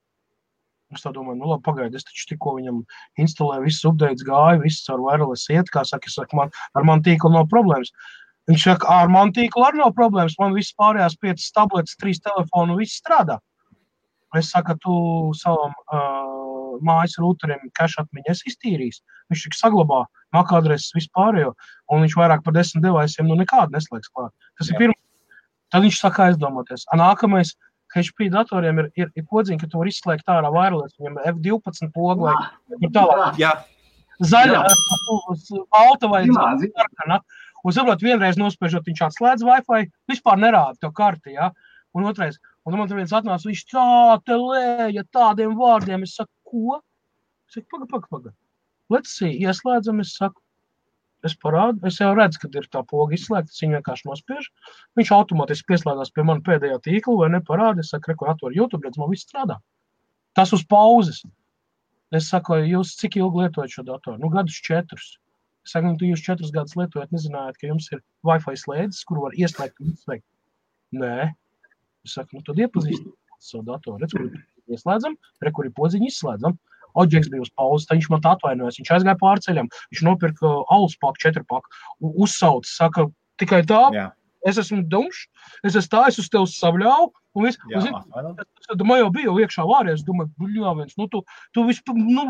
Es tā domāju, labi, pagaidi, es taču tikko viņam instalēju, viss updates gāja, viss ar wireless iet, kā saka, es saku, ar man tīklu nav problēmas. Viņš saka, ar man tīklu arī nav problēmas, man viss pārējās 5 tabletes, 3 telefonu, viss strādā. Es saku, tu savam mājas rūteriem cache atmiņu esi iztīrījis. Viņš tik saglabā MAC adreses vispārējo, un viņš vairāk par 10 deviceiem nekādu neslēgs klāt. Tas ir pirmais. Tad viņš saka aizdomāties. Nākamais, HP datoriem ir podziņa, ka tu var izslēgt ārā wireless, viņam F12 pogu vai tālāk. Jā. Zaļa, balta vai sarkana. Un saprot, vienreiz nospēžot, viņš atslēdz Wi-Fi, vispār nerāda tev karti, jā. Un otrais, un man tur viens atnāca, viņš tā te lēja tādiem vārdiem. Es saku, ko? Es saku, paga. Let's see, ieslēdzam, es saku. Es parādu, es jau redzu, kad ir tā poga izslēgta, es viņu vienkārši nospiežu. Viņš automātiski pieslēdās pie man pēdējā tīkla vai neparāda. Es saku, rekur atver YouTube, redz, man viss strādā. Tas uz pauzes. Es saku, jūs cik ilgi lietojat šo datoru? Gadus 4. Es saku, jūs 4 gadus lietojat, nezinājāt, ka jums ir Wi-Fi slēdzes, kuru var ieslēgt un izslēgt. Nē. Es saku, tad iepazīstināt savu datoru. Redz, kur ieslēdzam, rekur ir podziņu izslēdzam. Oģeks bija uz pauzes, tad viņš man tā atvainojas. Viņš aizgāja pārceļam, viņš nopirka alus paku, 4 paku, uzsauc, saka, tikai tā, es esmu dumšs, es esmu tā, es uz tevi sabļāvu, un viss. Man jau bija iekšā vāries, domāju, bļāviens, tu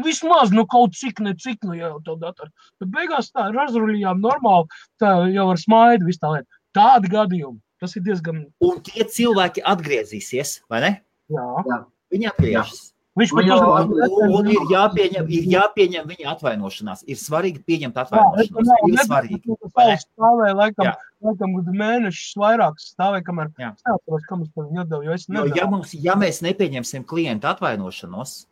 vismaz, kaut cik, jau tev datoru. Bet beigās tā, razruļījām normāli, tā jau ar smaidu, viss tā lieta. Tādi gadījumi, tas ir diezgan... Un tie cilvēki atgriezīsies, vai ne? Jā. Viņi atgriežas. Un ir jāpieņem viņa atvainošanās. Ir svarīgi pieņemt atvainošanos. Ir svarīgi. Stāvēja laikam mēnešus vairākas stāvēja, kamēr stāvēs, kam es par viņu atdevu, jo es nedevu. Ja mēs nepieņemsim klienta atvainošanos,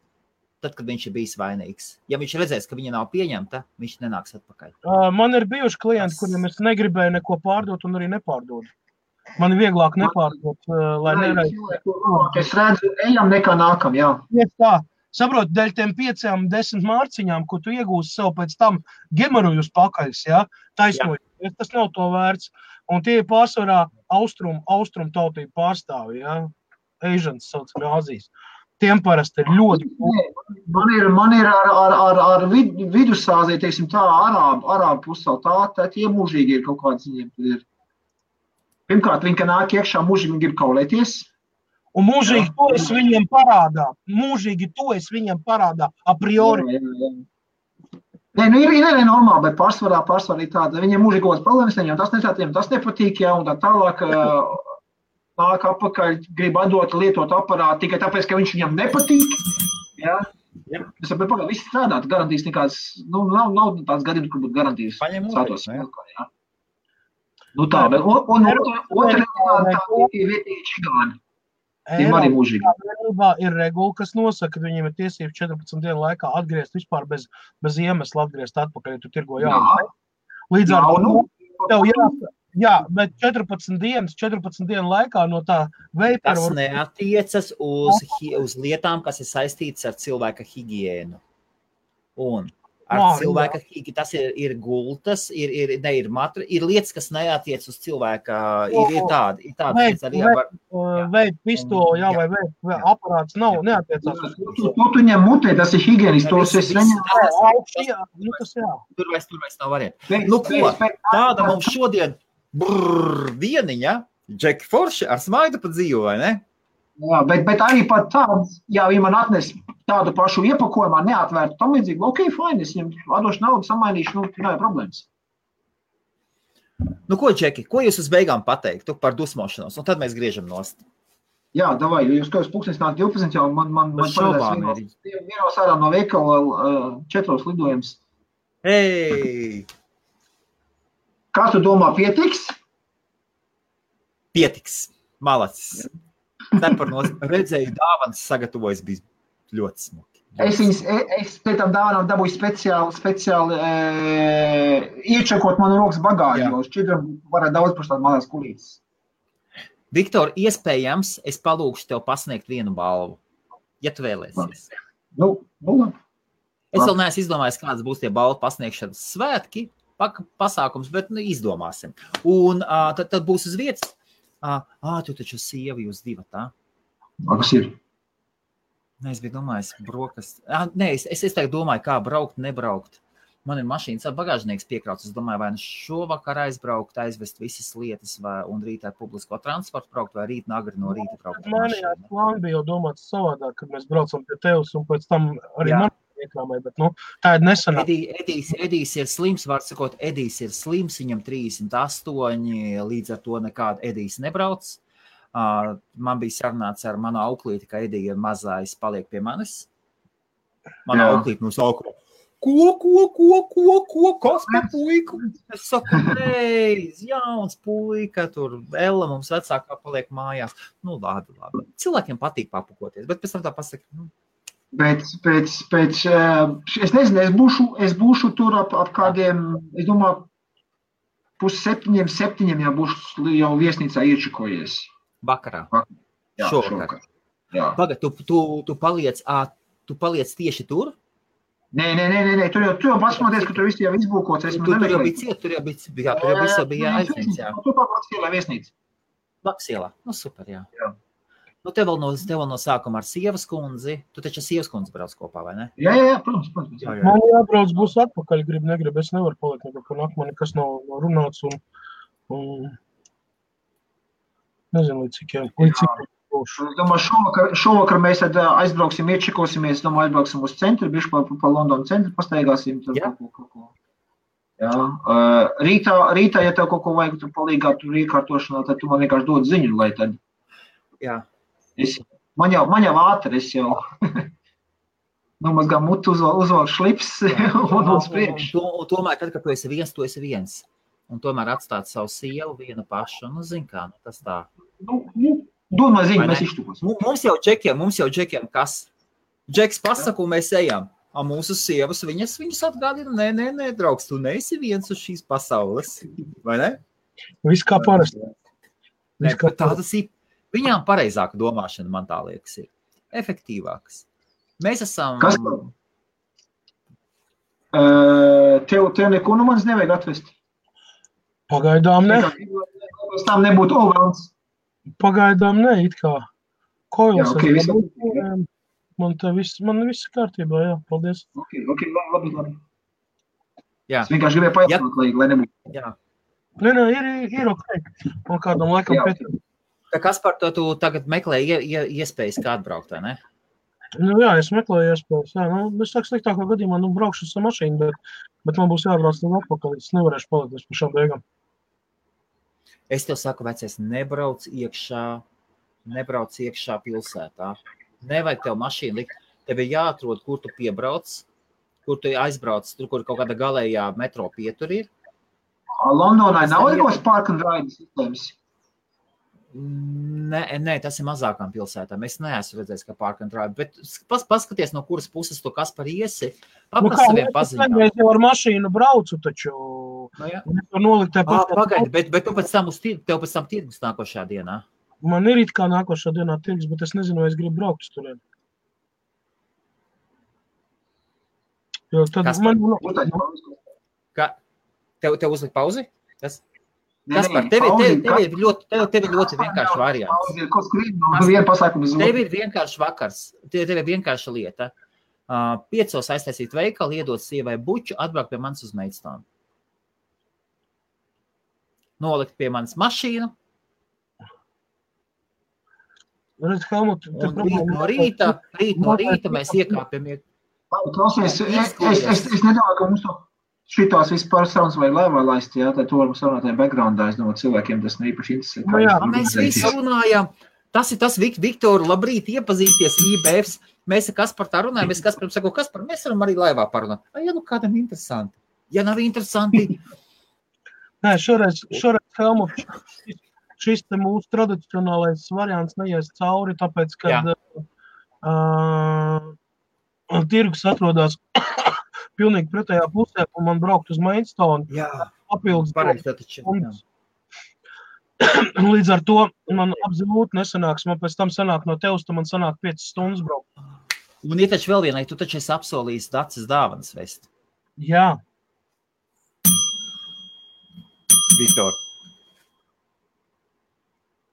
tad, kad viņš ir bijis vainīgs, ja viņš redzēs, ka viņa nav pieņemta, viņš nenāks atpakaļ. Man ir bijuši klienti, kuriem es negribēju neko pārdot un arī nepārdodu. Man ir vieglāk nepārdot, lai nereiz. Es redzu, ejam nekā nākam, jā. Iet tā. Saprot, dēļ tiem 5-10 mārciņām, ko tu iegūsi sev pēc tam gemarujus pakaļs, jā, taisnoji. Tas nav to vērts. Un tie ir pārsvarā austrum tautību pārstāvi, jā. Asians saucami Āzijas. Tiem parasti ir ļoti... Man ir ar Vidusāziju, teiksim tā, arābu pussauli, tā tie mūžīgi ir kaut kāds viņiem, tad ir. Pirmkārt, viņi, ka nāk iekšā, mūžīgi grib kaulēties. Un mūžīgi to es viņiem parādā. Mūžīgi to es viņiem parādā, a priori. Nē, ir normāli, bet pārsvarā ir tāda. Viņiem mūžīgi kaut kāds problēmas, viņiem tas nepatīk, jā, un tā tālāk nāk apakaļ, grib atdot, lietot aparātu, tikai tāpēc, ka viņš viņam nepatīk. Jā. Es saprotu, pagaid, viss strādāt, garantīs nekāds, nav tāds gadījums, kur būtu garantīs. Paņem mūžīgi, jā. Nu tā, bet otra tā vietīgi čigāni. Eiropā ir regula, kas nosaka, ka viņiem ir tiesības 14 dienu laikā atgriezt vispār bez iemesla atgriezt atpakaļ, ja tu tirgo jaunu. Līdz ar to, bet 14 dienu laikā no tā veipera... Tas neatiecas uz lietām, kas ir saistītas ar cilvēka higiēnu. Un ar cilvēka higiēnu, tas ir gultas, ir lietas, kas neatiec uz cilvēka, ir tādi. Veip pistoli, vai veip aparāts neatiecās uz to. Tu ņem mutē, tas ir higiēnistos, es neņem. Tur vairs nav varianti. Nu ko, tāda mums šodien dieniņa, Džeki Forši ar smaidu pa dzīvu, vai ne? Jā, bet arī pat tāds, ja man atnes tādu pašu iepakojumā, neatvērtu tam līdzīgi, ok, fine, es viņam atdošu naudu, samainīšu, nav problēmas. Nu ko, Džeki, ko jūs uz beigām pateiktu par dusmošanos, un tad mēs griežam nost? Jā, davai, jo jūs kāds pulkstens nāk 12, jau man parādās vienos ārā no veikala 4 lidojums. Hei! Kā tu domā, pietiks? Pietiks, malacis. Redzēju dāvanas sagatavojas bija ļoti smuki. Es pēc tam dāvanām dabūju speciāli iečakot manu rokas bagāžu, jo šķidram varētu daudz par tādu malās kulītes. Viktor, iespējams, es palūkšu tev pasniegt vienu balvu, ja tu vēlēsies. Nu, labi. Es vēl neesmu izdomājis, kādas būs tie balvu pasniegšanas svētki, pasākums, bet izdomāsim. Un tad būs uz vietas. Tu taču sievi jūs divi, tā? Kas ir? Nē, es biju domājis, brokas. Nē, es tagad domāju, kā braukt, nebraukt. Man ir mašīnas bagāžnieks piekrauts. Es domāju, vai šovakar aizbraukt, aizvest visas lietas, un rītā publisko transportu braukt, vai rīt agri no rīta braukt. Manijās plāni bija jau domāts savādāk, kad mēs braucam pie tevis, un pēc tam arī man iekrāmēja, bet tā ir nesenā. Edijs ir slims, var sakot, Edijs ir slims, viņam 38, līdz ar to nekāda Edijs nebrauc. Man bija sarunāts ar manu auklīti, ka Edija mazais paliek pie manis. Mana auklīti no sākuma. Ko, kas pa puiku? Es saku, jauns puika, tur Ella mums vecākā paliek mājās. Nu, labi. Cilvēkiem patīk papukoties, bet pēc tam tā pasaka, es nezinu, es būšu tur ap kādiem, es domāju, 6:30, ja būšu jau viesnīcā iečakojies. Vakarā? Šovakar. Pagad, tu paliec tieši tur? Nē, tur jau pasmoties, ka tur viss jau izbūkots. Tur jau bija aizņemts, jā. Tur Baksielā viesnīca. Baksielā, nu super, jā. Nu, tev vēl no sākuma ar sievas kundzi. Tu taču sievas kundzi brauc kopā, vai ne? Jā, protams. Man jābrauc būs atpakaļ, grib, es nevaru palikt nekako nāk, man nekas nav runāts un nezinu, līdz cikiem būšu. Es domāju, šovakar mēs tad aizbrauksim, iečekosimies, aizbrauksim uz centru, bišķi pa Londonu centru pastaigāsim. Jā. Rītā, ja tev kaut ko vajag tur palīgā, tur iekārtošanā, tad tu man vienkārši dod ziņu, lai tad. Jā. Man jau ātri, es jau nomazgā mutu, uzvalk šlips un uz priekšu. Tomēr, tad, kad tu esi viens, un tomēr atstāt savu sievu vienu pašu, nu, zin kā, tas tā. Domā ziņu, mēs iztukos. Mums jau džekiem kas? Džeks pasaka, un mēs ejam. Mūsu sievas, viņas atgādina, nē, draugs, tu neesi viens uz šīs pasaules, vai ne? Viss kā parasti. Tādas ir, viņām pareizāka domāšana, man tā liekas, ir efektīvākas. Mēs esam... Kas? Tev neko no manis nevajag atvest? Pagaidām ne. Pēc tam nebūtu overlands. Pagaidām ne, it kā. Koils. Okay, man viss kārtībā, jā, paldies. Ok, labi. Jā. Es vienkārši gribēju pajautāt, lai nebūtu. Jā. Nē, ir ok. Un kādam laikam pēc. Kas par to tu tagad meklē iespējas kā atbraukt, vai ne? Nu jā, es meklēju iespējas, jā. Es saku sliktākā gadījumā, braukšu ar mašīnu, bet man būs jābrauc līdz atpakaļ, es nevarēšu palikt par šām beigām. Es tev saku, vecies, nebrauc iekšā pilsētā. Nevajag tev mašīnu likt. Tev ir jāatrod, kur tu piebrauc, kur tu aizbrauc, tur, kur kaut kāda galējā metro pietur ir. Londonai nav ikos park and ride sistēmas? Nē, tas ir mazākām pilsētām. Es neesmu redzējis, ka park and ride, bet paskaties, no kuras puses tu kas par iesi. Paprasti saviem paziņām. Es jau ar mašīnu braucu, taču nolikt Pagaidi, bet tu tev pēc tam tirgus nākošajā dienā? Man ir it kā nākošā dienā tirgus, bet es nezinu, vai es gribu braukt uz turien. Jo tad Tev uzlikt pauzi? Kaspar, tev ir ļoti vienkārši variants. Tev ir vienkārši vakars, tev ir vienkārša lieta. 5 aiztaisīt veikalu, iedot sievai buču, atbraukt pie manis uz Maidstone. Nolikt pie manis mašīnu. Un rīt no rīta mēs iekāpjam. Klausies, es nedomāju, ka mums šitās vispār sarunas vai laivā laist, jā, tad to varam sarunāt backgroundā, es domāju, cilvēkiem tas neīpaši interesē. Mēs visi runājam. Tas ir tas, Viktor, labrīt, iepazīsties IBFs. Mēs ar Kasparu tā runājam, es Kasparam saku, Kaspar, mēs varam arī laivā parunāt. Ja nu kādam interesanti. Ja nav interesanti. Nē, šoreiz Helmut, šis te mūsu tradicionālais variants neies cauri, tāpēc, kad tirgus atrodas pilnīgi pretējā pusē, un man braukt uz Maidstone. Papildus stundas. Līdz ar to man absolūti nesanāks. Man pēc tam sanāk no tevis, man sanāk 5 stundas braukt. Un ir taču vēl vienai, tu taču esi apsolījis Dacis dāvanas vest. Jā. Viktor.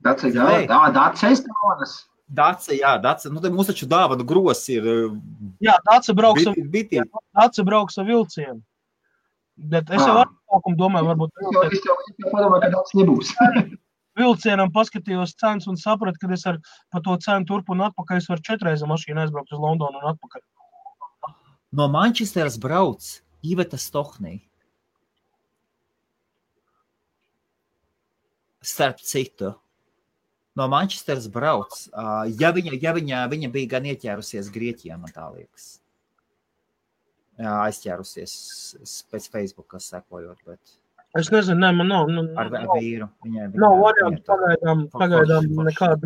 Dacis dāvanas. Daci. Nu, mums taču dāvanu gros ir... Jā, Daci brauks ar vilcienu. Bet es jau atsākumu domāju, varbūt... Es jau padomāju, ka Daci nebūs. Vilcienam paskatījos cenas un sapratu, ka es par to cenu turpu un atpakaļ es varu 4 reizes mašīnu aizbraukt uz Londonu un atpakaļ. No Manchesteras brauc Iveta Stohnī. Starp citu. No Manchesteras brauc. Ja viņa bija gan ieķērusies Grieķijā, man tā liekas. Jā, aizķērusies pēc Facebooka sekojot, bet... Es nezinu, man nav... Ar vīru. Nav variantu, pagaidām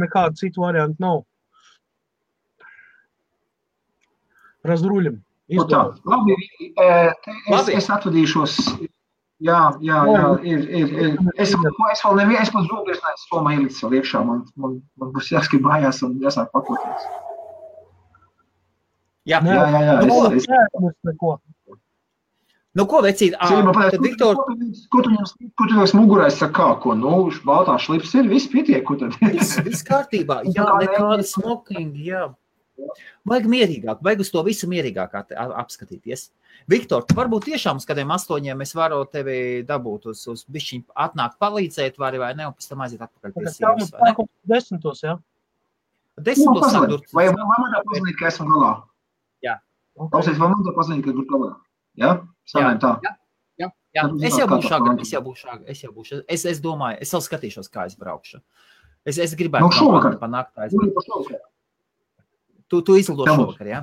nekāda citu variantu nav. Razruļam. Labi, es atvadīšos... Jā, ir. Es pat zūgļos neesmu somā ielicis vēl iekšā. Man būs jāskat mājās un jāsāk pakoties. Jā. Nu, ko, vecīt? Viktor... Ko tu jums mugurēs saka, ko? Nu, baltā šlips ir, viss pietiek, ko tad? Viss kārtībā. Jā, nekāda smoking, jā. Vajag mierīgāk, vajag uz to visu mierīgāk apskatīties. Viktor, tu varbūt tiešām uz kādiem 8 mēs varu tevi dabūt uz bišķiņ atnākt palīdzēt vai ne, un pēc tam aiziet atpakaļ pie sievas, vai ne? 10. jā? 10. sāk dur. Vai man tā pazinīt, ka esmu galā? Jā. Klausies, vai man tā pazinīt, ka dur galā? Jā? Sanājam tā? Jā. Es jau būšu. Es domāju, es vēl skatīšos, kā es braukšu. Es gribētu panākt aizbraukt. Tu izlido šovakar, jā?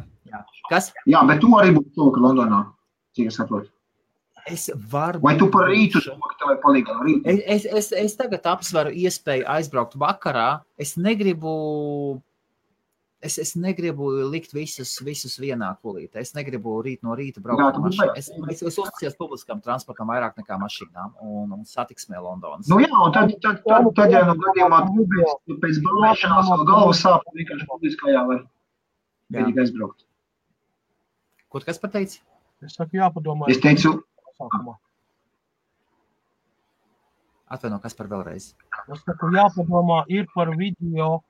Kas? Jā, bet tu arī būtu šovakar Londonā, cik es saprotu. Vai tu par rītu šovakar tev palīgā no rīta? Es tagad apsveru iespēju aizbraukt vakarā. Es negribu likt visus vienā kulītē. Es negribu rīt no rīta braukt ar mašīnu. Es uzticos publiskam transportam vairāk nekā mašīnām un satiksmē Londonas. Nu jā, un tad ja no gadījumā pēc balēšanās vēl galvas sāp vienkārši publiskajā var vienīgi aizbraukt. Ko tu kas pateici? Es saku jāpadomā. Es teicu... Atvaino, kas par vēlreiz? Es saku jāpadomā ir par video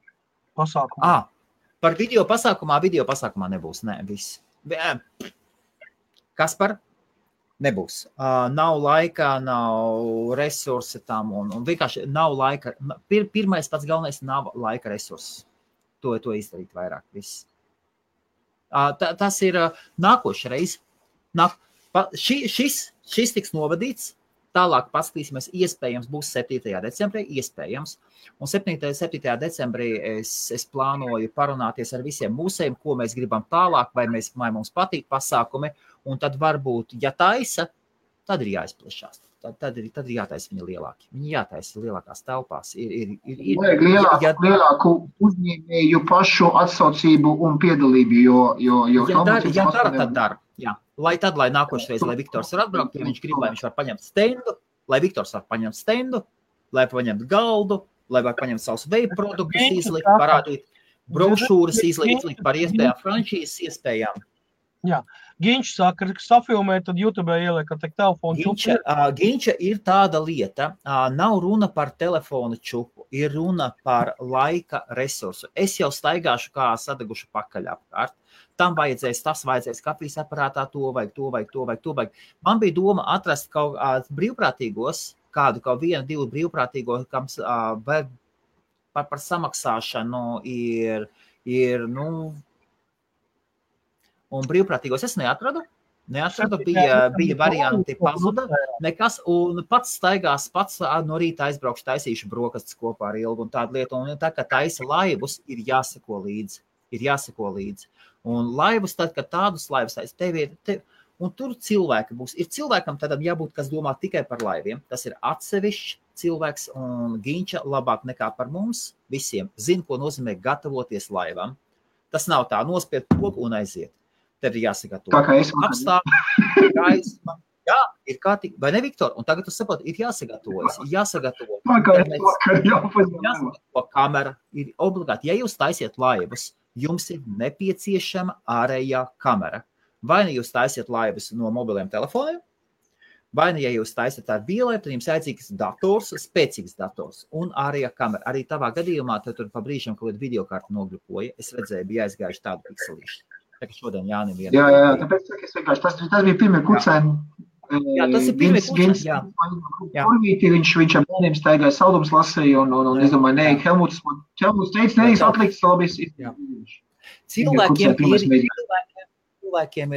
pasākumu. Par video pasākumā nebūs. Nē, viss. Kas par? Nebūs. Nav laika, nav resursi tam un vienkārši nav laika. Pirmais pats galvenais nav laika resursi. To izdarīt vairāk. Viss. Tas ir nākošreiz. Šis tiks novadīts. Tālāk paskatīsimies, iespējams būs 7. decembrī, iespējams. Un 7. decembrī es plānoju parunāties ar visiem mūsējiem, ko mēs gribam tālāk, vai mums patīk pasākumi. Un tad varbūt, ja taisa, tad ir jāizplešās. tad ir jātaisa viņi lielāki. Viņi jātaisa lielākās telpās. Vajag lielāku uzņēmēju pašu atsaucību un piedalību, jo ja dara, tad dara. Jā. Lai nākošreiz, lai Viktors var atbraukt, ja viņš grib, lai viņš var paņemt stendu, lai Viktors var paņemt stendu, lai paņemt galdu, lai var paņemt savus vape produktus, izlikt, parādīt brošūras, izlikt par iespējām franšīzes iespējām. Jā. Ginčs saka, ka safilmē, tad YouTube ieliek ar telefonu čupu. Ginča ir tāda lieta, nav runa par telefonu čupu, ir runa par laika resursu. Es jau staigāšu kā sadegušu pakaļ apkārt. Tam vajadzēs, kafijas aparātā, to vajag. Man bija doma atrast kaut brīvprātīgos, kaut vienu, divu brīvprātīgo, kam par samaksāšanu ir un brīvprātīgos es neatradu, bija varianti pazuda, nekas, un pats staigās, no rīta aizbraukšu, taisīšu brokastis kopā ar Ilgu un tādu lietu, un tā, ka taisa laivus, ir jāseko līdzi. Un laivus, tad, kad tādus laivus taisa, un tur cilvēki būs. Ir cilvēkam tādam jābūt, kas domā tikai par laiviem. Tas ir atsevišķs cilvēks, un Ginča labāk nekā par mums visiem zina, ko nozīmē gatavoties laivam. Tas nav tā nospied pogu un aiziet. Tev ir jāsagatavo. Apstākļi, gaisma. Jā, ir kārtīgi. Vai ne, Viktor? Un tagad tu saproti, ir jāsagatavojas. Jāsagatavo kamera. Ir obligāti. Ja jūs taisiet laivas, jums ir nepieciešama ārējā kamera. Vai ne jūs taisiet laivas no mobiliem telefoniem, vai ne, ja jūs taisiet ar vielēm, tad jums aicīgs dators, spēcīgs dators un ārējā kamera. Arī tavā gadījumā tur pa brīžam kaut kādu videokartu nogrupoja. Es redzēju, bija aizgājuši tādu pikselīšu. Tā kā šodien Jānim viena. Jā, tāpēc es vienkārši, tas bija pirmie kucēni. Jā, tas ir pirmie kucēni, jā. Viņš ar bērniem staigāja saldums lasīja un es domāju, nē, Helmuts teica, nē, atliks labīs. Cilvēkiem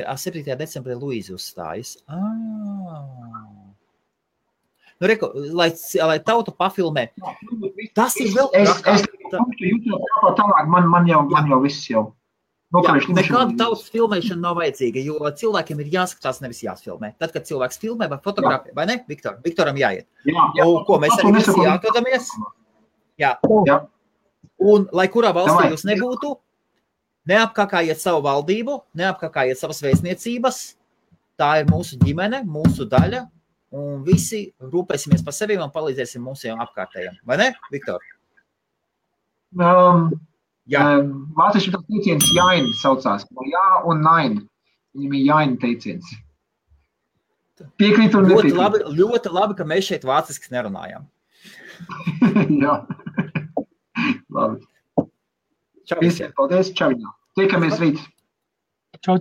ir 7. decembrī Luīzi uzstājas. Nu, reku, lai tautu pafilmē. Tas ir vēl man jau viss jau. Nekāda tautas filmēšana nav vajadzīga, jo cilvēkiem ir jāskatās, nevis jāsfilmē. Tad, kad cilvēks filmē vai fotografē, vai ne, Viktor? Viktoram jāiet. Ko mēs arī visi jāatrodamies? Jā. Un, lai kurā valstī jūs nebūtu, neapkakājiet savu valdību, neapkakājiet savas vēstniecības. Tā ir mūsu ģimene, mūsu daļa, un visi rūpēsimies par sevi un palīdzēsim mūsu apkārtējiem. Vai ne, Viktor? Vācieši tas teiciens jāin saucās. Jā un nain. Viņam ir jāin teiciens. Piekrīt un nepiekrīt. Ļoti labi, ka mēs šeit vācisks nerunājam. Jā. Labi. Čau visiem. Paldies, čau. Tiekamies rīt. Čau.